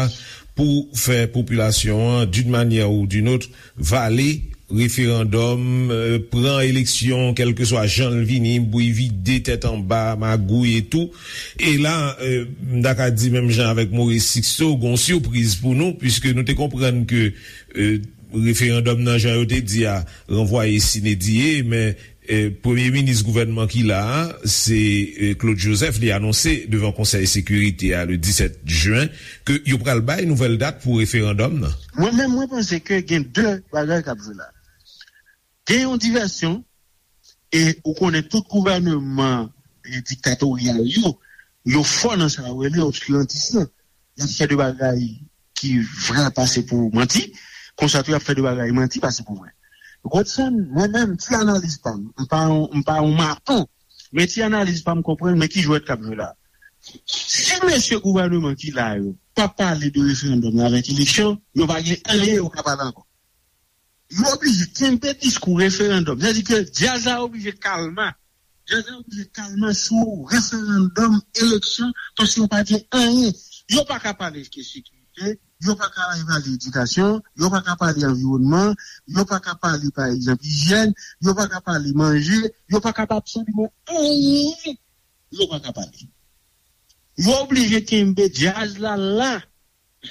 pou fè popilasyon an, d'une manière ou d'une autre, vale referandòm, eh, pran eleksyon, kèlkeswa jan l vini, bri vide, tèt anba, magouy e tou. E la, eh, m ta ka di menm jan avèk Maurice Sixto, gon sipriz pou nou, piske nou te konprann ke, eh, referandòm nan, jan yo te di a, ranvwaye sine die, men, eh, premye minis gouvènman ki la a, se, eh, Claude Joseph, li anonse devan Konsèy Sekirite a le disèt jen ke yo pral bay nouvèl dat pou referandòm nan. Mwen menm, mwen panse ke gen de bagay k ap jwe la. Gen yon divèsyon, e ou konnen tout gouvènman, e, diktatoryal yo, yo fò nan sa yo rele obskirantis lan. Y ap fè de bagay ki vrè pase pou manti, konsa tou y ap fè de bagay manti pase pou vrè. Godson, mwen menm, ti analiz pa m, m pa yon, m pa yon maton, men ti analiz pa m konprann, men ki jwèt k ap jwe la. Si mesye gouvènman ki la yo pa pale de referandòm avèk eleksyon, yo pa gen anyen yo ka pale ankò. Yo oblije kenbe diskou referandòm. Sa vle di ke djaz la oblije kalma. Djaz la oblije kalma sou referandòm, eleksyon, paske yo pa gen anyen. Yo pa ka pale de sekirite, yo pa ka pale edikasyon, yo pa ka pale anviwònman, yo pa ka pale, pa egzanp, ijyèn, yo pa ka pale manje, yo pa ka pale absoliman anyen. Yo pa ka pale. Yo oblije kenbe djaz la la.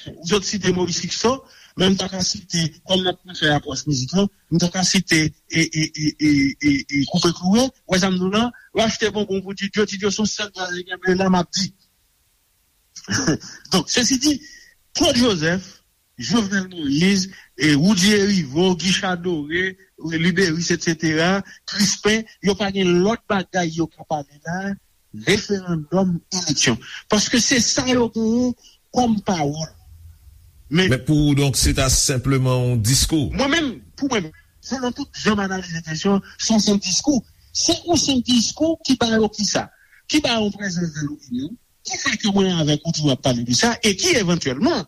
Ou sot site Maurice Sixto, men m ta ka site, kòm n ap fè apwòch mizik lan, m ta ka site e, e, e, e, e, e Koupe Klouwe, wè sa m di w lan, yo achte bonbon pou Ti Djo, Ti Djo se yon sèl djaz li genbe la, m ap di. Donk, sesi di, Claude Joseph, Jovenel Moïse, e Woody Herivaux, Guy Chadoré, Liberis, etsetera, Crispin, yo pa gen lòt bagay yo ka pale la, referandòm, eleksyon. Paske se sa yo genyen kòm pawòl. Men, men pou ou, donk, se ta senpleman yon diskou? Mwen menm, pou mwen menm, selon tout jan m analize kesyon, se yon senp diskou. Se yon senp diskou ki ba yo kisa? Ki ba yo prezans dan lopinyon, ki fè ke mwen avèk ou toujou ap pale de sa, e ki evantyèlman,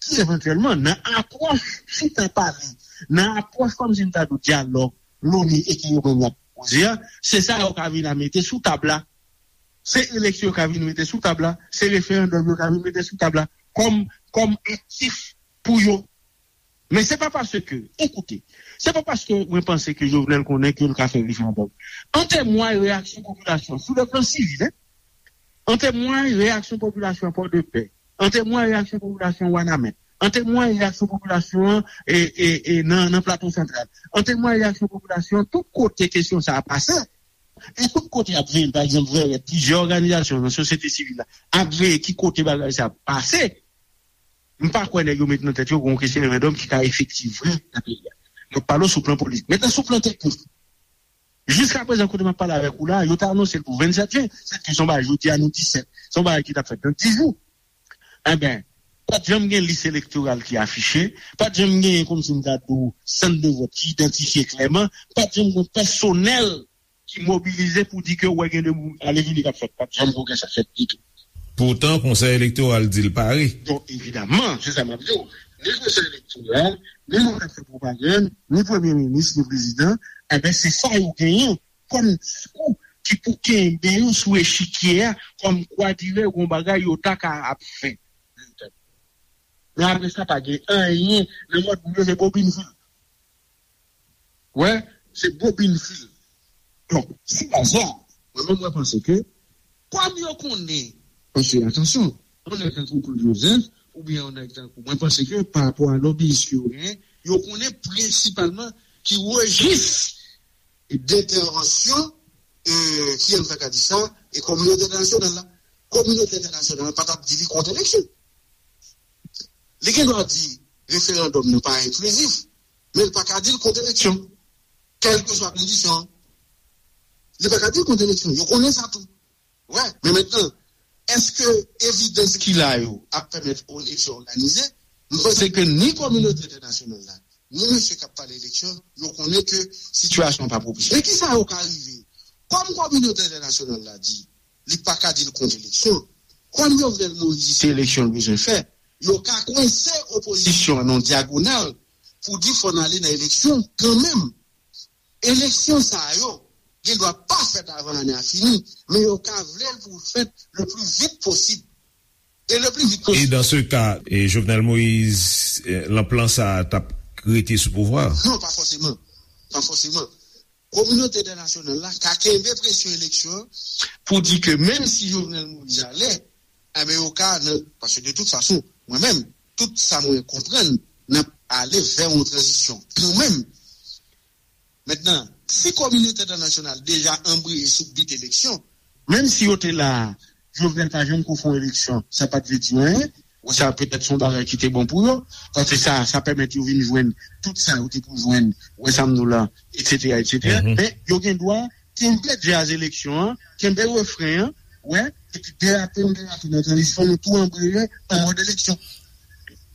ki evantyèlman, nan apwòch chita pale, nan apwòch kòmsi m ta di w dyalòg, loni e ke yo menm y ap pwopoze a, se sa yo ka vin a mete sou tab la. Se eleksyon yo ka vin mete sou tab la, se referandòm yo ka vin mete sou tab la, kòm, kòm aktif pou yo. Men se pa paske, ekoute, se pa paske mwen panse ke Jovenel konnen ke l ka fè referandòm. An temway reyaksyon popilasyon, sou le plan sivil, en, an temway reyaksyon popilasyon Pòdepè, an temway reyaksyon popilasyon Wanament, an temway reyaksyon popilasyon e, e, e, nan, nan Plato Santral, an temway reyaksyon popilasyon tout kote kesyon sa a pase. E tout kote y ap veye l, pa egzanp, Vèrèt, plizyè òganizasyon nan sosyete sivil la ap veye ki kote bagay sa ap pase. M pa kwè nèg yo met nan tèt yo gen yon kesyon referandòm ki ka efektif vre nan peyi a. M ap pale w sou plan politik. Mentnan, sou plan teknik, jiskaprezan, kote m ap pale avèk ou la, yo te anonse l pou vennsèt jen. Sètadi se yon bagay jodi a, nou disèt. Se yon bagay ki t ap fèt nan dis jou. Enben, pa t janm gen lis elektoral ki afiche, pa t janm gen, kòmsi m ta di w, sant de vòt ki idantifye klèman, pa t janm gen pèsonèl ki mobilize pou di ke, wè, gen de ale vini k ap fèt. Pa t janm gen sa fèt ditou. Poutan, Konsèy Elektoral di l pare. Donk, evidaman, se sa m ap di w. Ni Konsèy Elektoral, ni moun k ap fè pwopagann, ni Premye Minis, ni Prezidan, enben, se sa yo genyen kòm diskou ki pou kenbe yo sou echikye a, kòmkwa dirè gon bagay yo ta ka ap fè. Men apre sa, pa gen anyen nan mòd moun yo, se bobin fil. Wè, se bobin fil. Donk, sou baz sa, mwen menm, mwen panse ke, kòm yo konnen, paske, atansyon, yon nèg tankou Claude Joseph, oubyen yon nèg tankou, mwen panse ke, pa rapò a lobbyist ke yo genyen, yo konnen prensipalman ki rejis dentèvansyon, e, ki, an ta ka di sa, e kominote entènasyonal la. Kominote entènasyonal la pa t ap di li kont eleksyon. Li gen dwa di referandòm nan pa enklizif, men li pa ka di l kont eleksyon. Kèlkeswa kondisyon an, li pa ka di l kont eleksyon. Yo konnen sa tou. Wè, men mentnan, èske evidans ki la yo ap pèmèt yon eleksyon òganize? M panse ke ni kominote entènasyonal la, ni mesye k ap pale eleksyon, yo konnen ke sitiyasyon an pa pwopis. Men kisa yo ka rive? Kòm kominote entènasyonal la di, li pa ka di l kont eleksyon. Kòm Jovenel Moïse se eleksyon l bezwen fè, yo ka kwense opozisyon an nan yon dyagonal pou di fò n ale nan eleksyon kanmenm. Eleksyon sa yo gen dwa pa fèt avan ane a fini, men yo ka vle l pou l fèt le pli vit posib. E le pli vit posib. E dans ce cas, e Jovenel Moïse, e, lan plan sa a t ap rete sou pouvwa a? Non, pa fòseman. Pa fòseman. Kominote entènasyonal la ka kenbe presyon eleksyon an pou di ke menm si Jovenel Moïse ale, enben yo ka, nan, paske de tout fason, mwen menm, tout sa mwen konprann, n ap ale vè yon tranzisyon kanmenm. Mentnan, si kominote entènasyonal deja anbreye sou bit eleksyon, menm si yo te la, Jovenel pa janm ko fè yon eleksyon, sa pa t vle di anyen. Wè sa, petèt se yon bagay ki te bon pou yo, paske sa, sa pèmèt yo vin jwenn tout sa yo te pou jwenn, wè sa m di w la, etsetera, etsetera. Men yo gen dwa kenbe djaz eleksyon an, kenbe refren an, wè, epi derape n derape nan tranzisyon, nou tou anbreye an mòd eleksyon.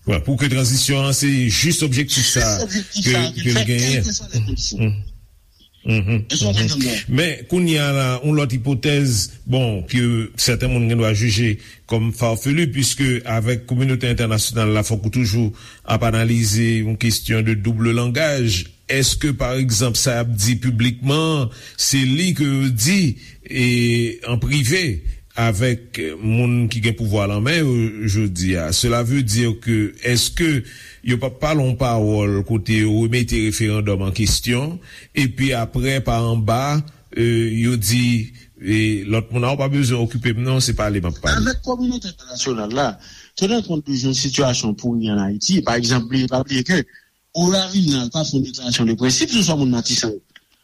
Wè, pou ke tranzisyon an, se jis objektif sa ke, ke l genyen. Kèlkeswa lè kondisyon. Men kounye a la, yon lòt ipotèz, bon, ke sèten moun gen dwa jije kòm farfelu, piske avèk kominote entènasyonal la, fòk ou toujou ap analize yon kesyon de double langaj. Èske, pa egzanp, sa y ap di piblikman an, se li ke yo di e, an prive, avèk moun ki gen pouvwa lan men yo jodi a? Cela veut dire que, èske yo p ap pale yon pawòl kote yo remete referandòm an kesyon, epi apre, pa anba, e, yo di, e, lòt moun nan, ou pa bezwen okipe m non, se pale m ap pale. Avèk kominote entènasyonal la, tennè kont de jan sitiyasyon pouri ann Ayiti, pa egzanp, bliye, pa bliye ke Oya Vinal pa fè yon deklarasyon de prensip sou sa moun Matisan yo.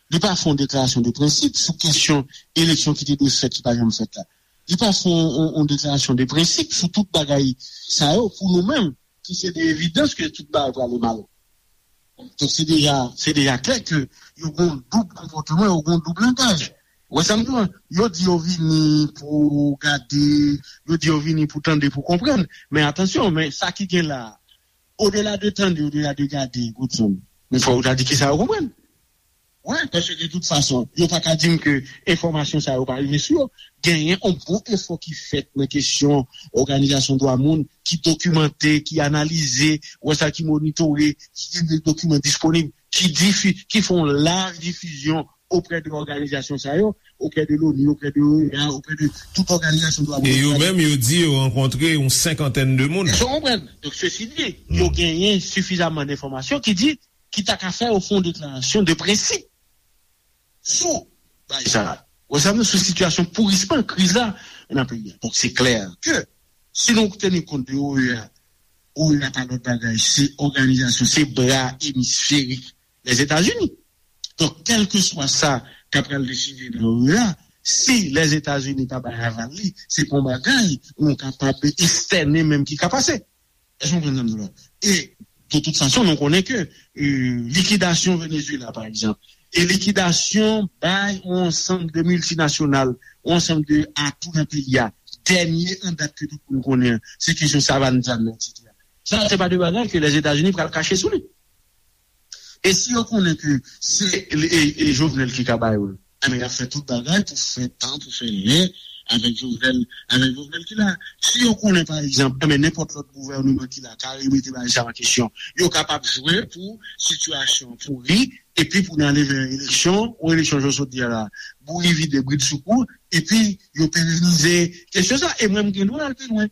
Li pa fè yon deklarasyon de prensip sou kesyon eleksyon ki te dwe fèt, ki pa janm fèt la. Li pa fè yon, yon, yon deklarasyon de prensip sou tout bagay sa yo pou nou menm, ki se de evidans ke tout bagay prale mal. Donk, se deja, se deja klè ke yo gen yon doub konpòtman, yo gen yon doub langaj. Wè sa m di w? Yo di yo vini pou gade, yo di yo vini pou tande, pou konprann. Men atansyon, men sa ki gen la a, odela de tande, odela de gade, Godson, men fò yo ta di kisa yo konprann. Wi, paske de tout fason, yo pa ka di m ke enfòmasyon sa yo pa rive sou yo. Genyen yon bon efò ki fèt nan kesyon òganizasyon dwa moun, ki dokimante, ki analize, wè sa, ki monitore, ki gen de dokiman disponib, ki difi-, ki fè yon laj difizyon oprè de òganizasyon sa yo, oprè de l'ONU, oprè de OEA, oprè de tout òganizasyon dwa moun. E yo menm, yo di yo rankontre yon senkantèn de moun. Èske w konprann? Donk, sesi di, yo genyen sifizaman enfòmasyon ki di, ki ta ka fè yo fè yon deklarasyon de prensip sou bagay sa a. Wè sa, nou sou sitiyasyon pourisman kriz la nan peyi a. Donk, se klè ke si nou teni kont de OEA, OEA pa lòt bagay, se òganizasyon, se bra emisferik Lèzetazini. Donk, kèlkeswa sa k ap pral deside nan OEA, si Lèzetazini pa bay aval li, se pa yon bagay nou kapab estène menm ki ka pase. Èske w konprann sa m di w la? E, de tout fason, nou konnen ke, e, likidasyon Venezuela, pa egzanp, e likidasyon bay yon ansanm de miltinasyonal, yon ansanm de atou nan peyi a, dènye an dat ke tout moun konnen an, se kesyon Savann Zàn nan, etsetera. Sa, se pa de bagay ke Lèzetazini pral kache sou li. E si yo konnen ke se e, e Jovenel ki ka ba yo l, enben, y ap fè tout bagay pou fè tan, pou fè lè, avèk Jovenel, avèk Jovenel ki la. Si yo konnen, pa egzanp, enben nenpòt lòt gouvèneman ki la ka remete bagay sa an kesyon, yo kapab jwe pou sitiyasyon pouri, epi pou n ale vè eleksyon, yon eleksyon jan w sot di a la, bouri vide bridsoukou, epi yo perenize kesyon sa. E mwen, m gen dwa al pi lwen.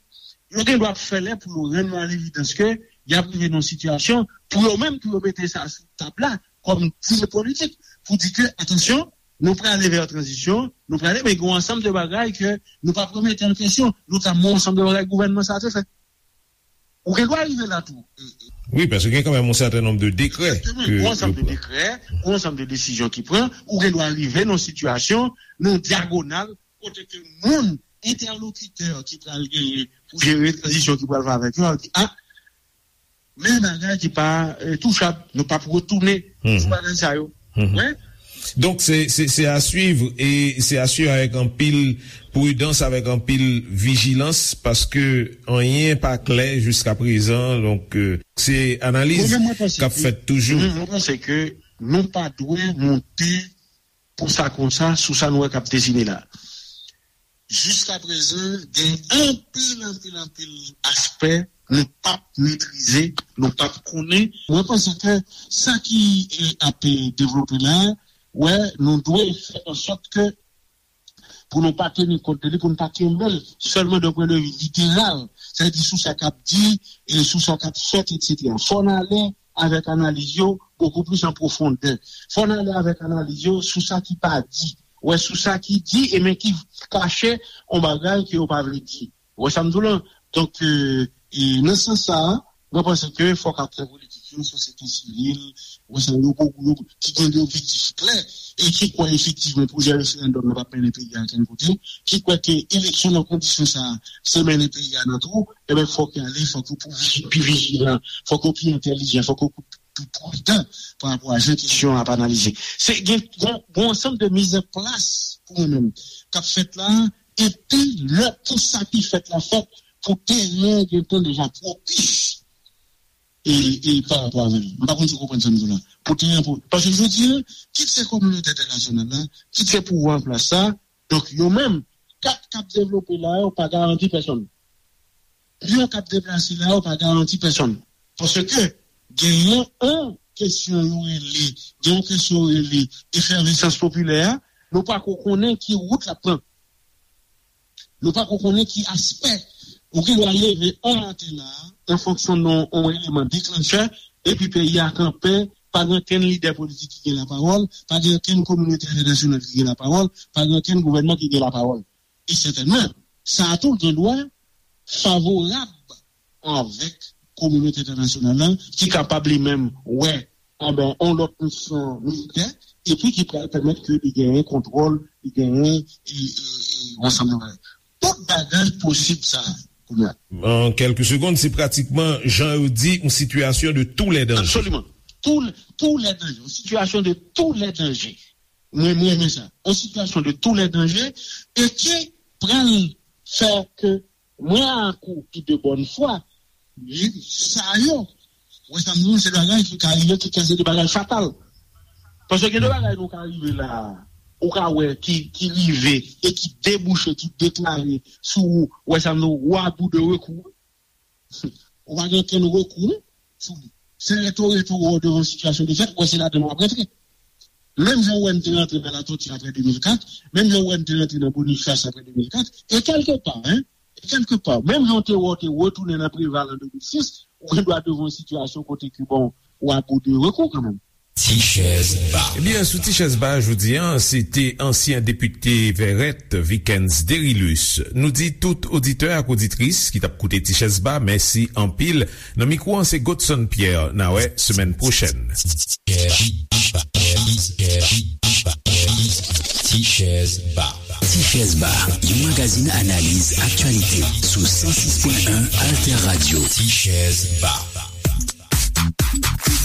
Yo gen dwa ap fè lè pou yo rann yo a levidans ke y ap rive nan yon sitiyasyon pou yo menm, pou yo mete sa sou tab la kòm dil politik, pou di ke, atansyon, nou prale vè tranzisyon, nou prale, men gen yon ansanm de bagay ke nou p ap remete an kesyon, notamman yon ansanm de bagay gouvènman sa a te fè. Ou gen dwa rive la tou. Wi, paske gen kanmenm yon sèten nonb de dekrè. Egzakteman. Gen yon ansanm de dekrè, gen yon ansanm de desizyon ki pran, ou gen dwa rive nan yon sitiyasyon, nan yon dyagonal, kote ke moun, entèlokitè ki pral genyen pou jere tranzisyon ki pral fè avèk yo, ap di, a, men bagay ki pa eh, touchab, nou p ap retounen sou bagay sa yo. Wi. Donk, se, se, se a swiv e se a swiv avèk anpil pridans, avèk anpil vijilans, paske anyen pa klè jiska prezan. Donk, eh, se analiz k ap fèt toujou. Mwen menm, mwen panse ke, mhm, mwen panse ke nou pa dwe monte pou sa konsa sou sa nou wè k ap desine la. Jiska prezan, gen anpil, anpil, anpil aspè nou p ap metrize, nou p ap konnen. Mwen panse ke sa ki eh, ap eh, devlope la, wè, nou dwe fè ansòt ke pou nou pa teni kont de li, pou nou pa kenbe l sèlman d'un pwen de vi literal, sètadi sou sa k ap di, e sou sa k ap fèt, etsetera. Fò n ale avèk analiz yo bokou plis an pwofondè. Fò n ale avèk analiz yo sou sa ki pa di. Wè, sou sa ki di, e men ki kache yon bagay ke yo pa vle di. Wè sa m di w lan? Donk, e, e nan sans sa a, mwen panse ke fòk aktè politik yo, sosyete sivil, wè sa yo, yo, yo, ki gen de objektif klè, e ki kwè efektivman pwojè referandòm nan p ap mennen peyi a okenn kote, ki kwè ke eleksyon nan kondisyon sa a, se mennen peyi a nan twou, enben fòk yo ale, fòk yo pi viji- pi vijilan, fòk yo pi entèlijan, fòk yo pi pridan pa rapò a jan kesyon an ap analize. Se gen yon, yon ansanm de mizanplas pou mwen menm k ap fèt la, epi lè pou sa ki fèt la fèt, pou teren an gentan deja pwopis e, e pa rapò avè l. M pa konn si w konprann sa m di w la. Pou teren an, pou, paske jodi a, kit se kominote entènasyonal la, kit se pouvwa an plas sa, donk yo menm, kat k ap devlope la yo pa garanti pèsonn. Pyon k ap deplase la yo pa garanti pèsonn. Paske genyen yon kesyon yo rele, gen yon kesyon yo rele efèvesans popilè a, nou pa ko konnen ki wout l ap pran. Nou pa ko konnen ki aspè. Ou gen dwa leve yon maten la, an fonksyon de yon eleman deklanchè, epi peyi a kanpe, pa gen okenn lidè politik ki gen lapawòl, pa gen okenn kominote entènasyonal ki gen lapawòl, pa gen okenn gouvènman ki gen lapawòl. E sètènman, sa a tou gen dwa favorab avèk kominote entènasyonal la, ki kapab li menm wè, enben, yon lòt misyon militè, epi ki pral pèmèt ke li genyen kontwòl, li genyen e, e, e, yon ansanm de bagay. Tout bagay posib sa a, kounye a. An kèlke segonn, se pratikman, jan yo di, yon sitiyasyon de tous les dangers. Absoliman. Tous, tous les dangers. Yon sitiyasyon de tous les dangers. Mwen, mwen renmen sa. Yon sitiyasyon de tous les dangers e ki pral fè ke mwen ak ou ki de bòn fwa, li, sa yo, wè sa m di w, se bagay ki ka rive, ki ka se de bagay fatal. Paske gen de bagay nou ka rive la, ou ka wè ki, ki rive e ki debouche, ki deklare sou, wè sa m di w, ou à bout de recours. Ou pa gen okenn rekou sou li. Se rete w rete w devan yon sitiyasyon de fèt, ou wè se ladan l w ap rantre. Menm jan w wè n te rantre nan Latòti apre de mil kat, menm jan w wè n te rantre nan Bonifas apre de mil kat, e kèlkepa, en, e kèlkepa, menm jan w te wè w te retounen nan Preval an de mil sis, ou gen dwa devan yon sitiyasyon kote ke, bon, ou à bout de recours kanmenm. Tichèz Ba. Ebyen, sou Tichèz Ba jodi a, se te ansyen depite Vèrèt, Vikens Derilus. Nou di tout oditè ak oditris ki t ap koute Tichèz Ba, mèsi anpil. Nan mikwo an, se Godson Pierre. N a wè semèn pwochèn. Tichèz Ba. Tichèz Ba, yon magazin analiz aktyalite sou san sis pwen en Alter Radio. Tichèz Ba.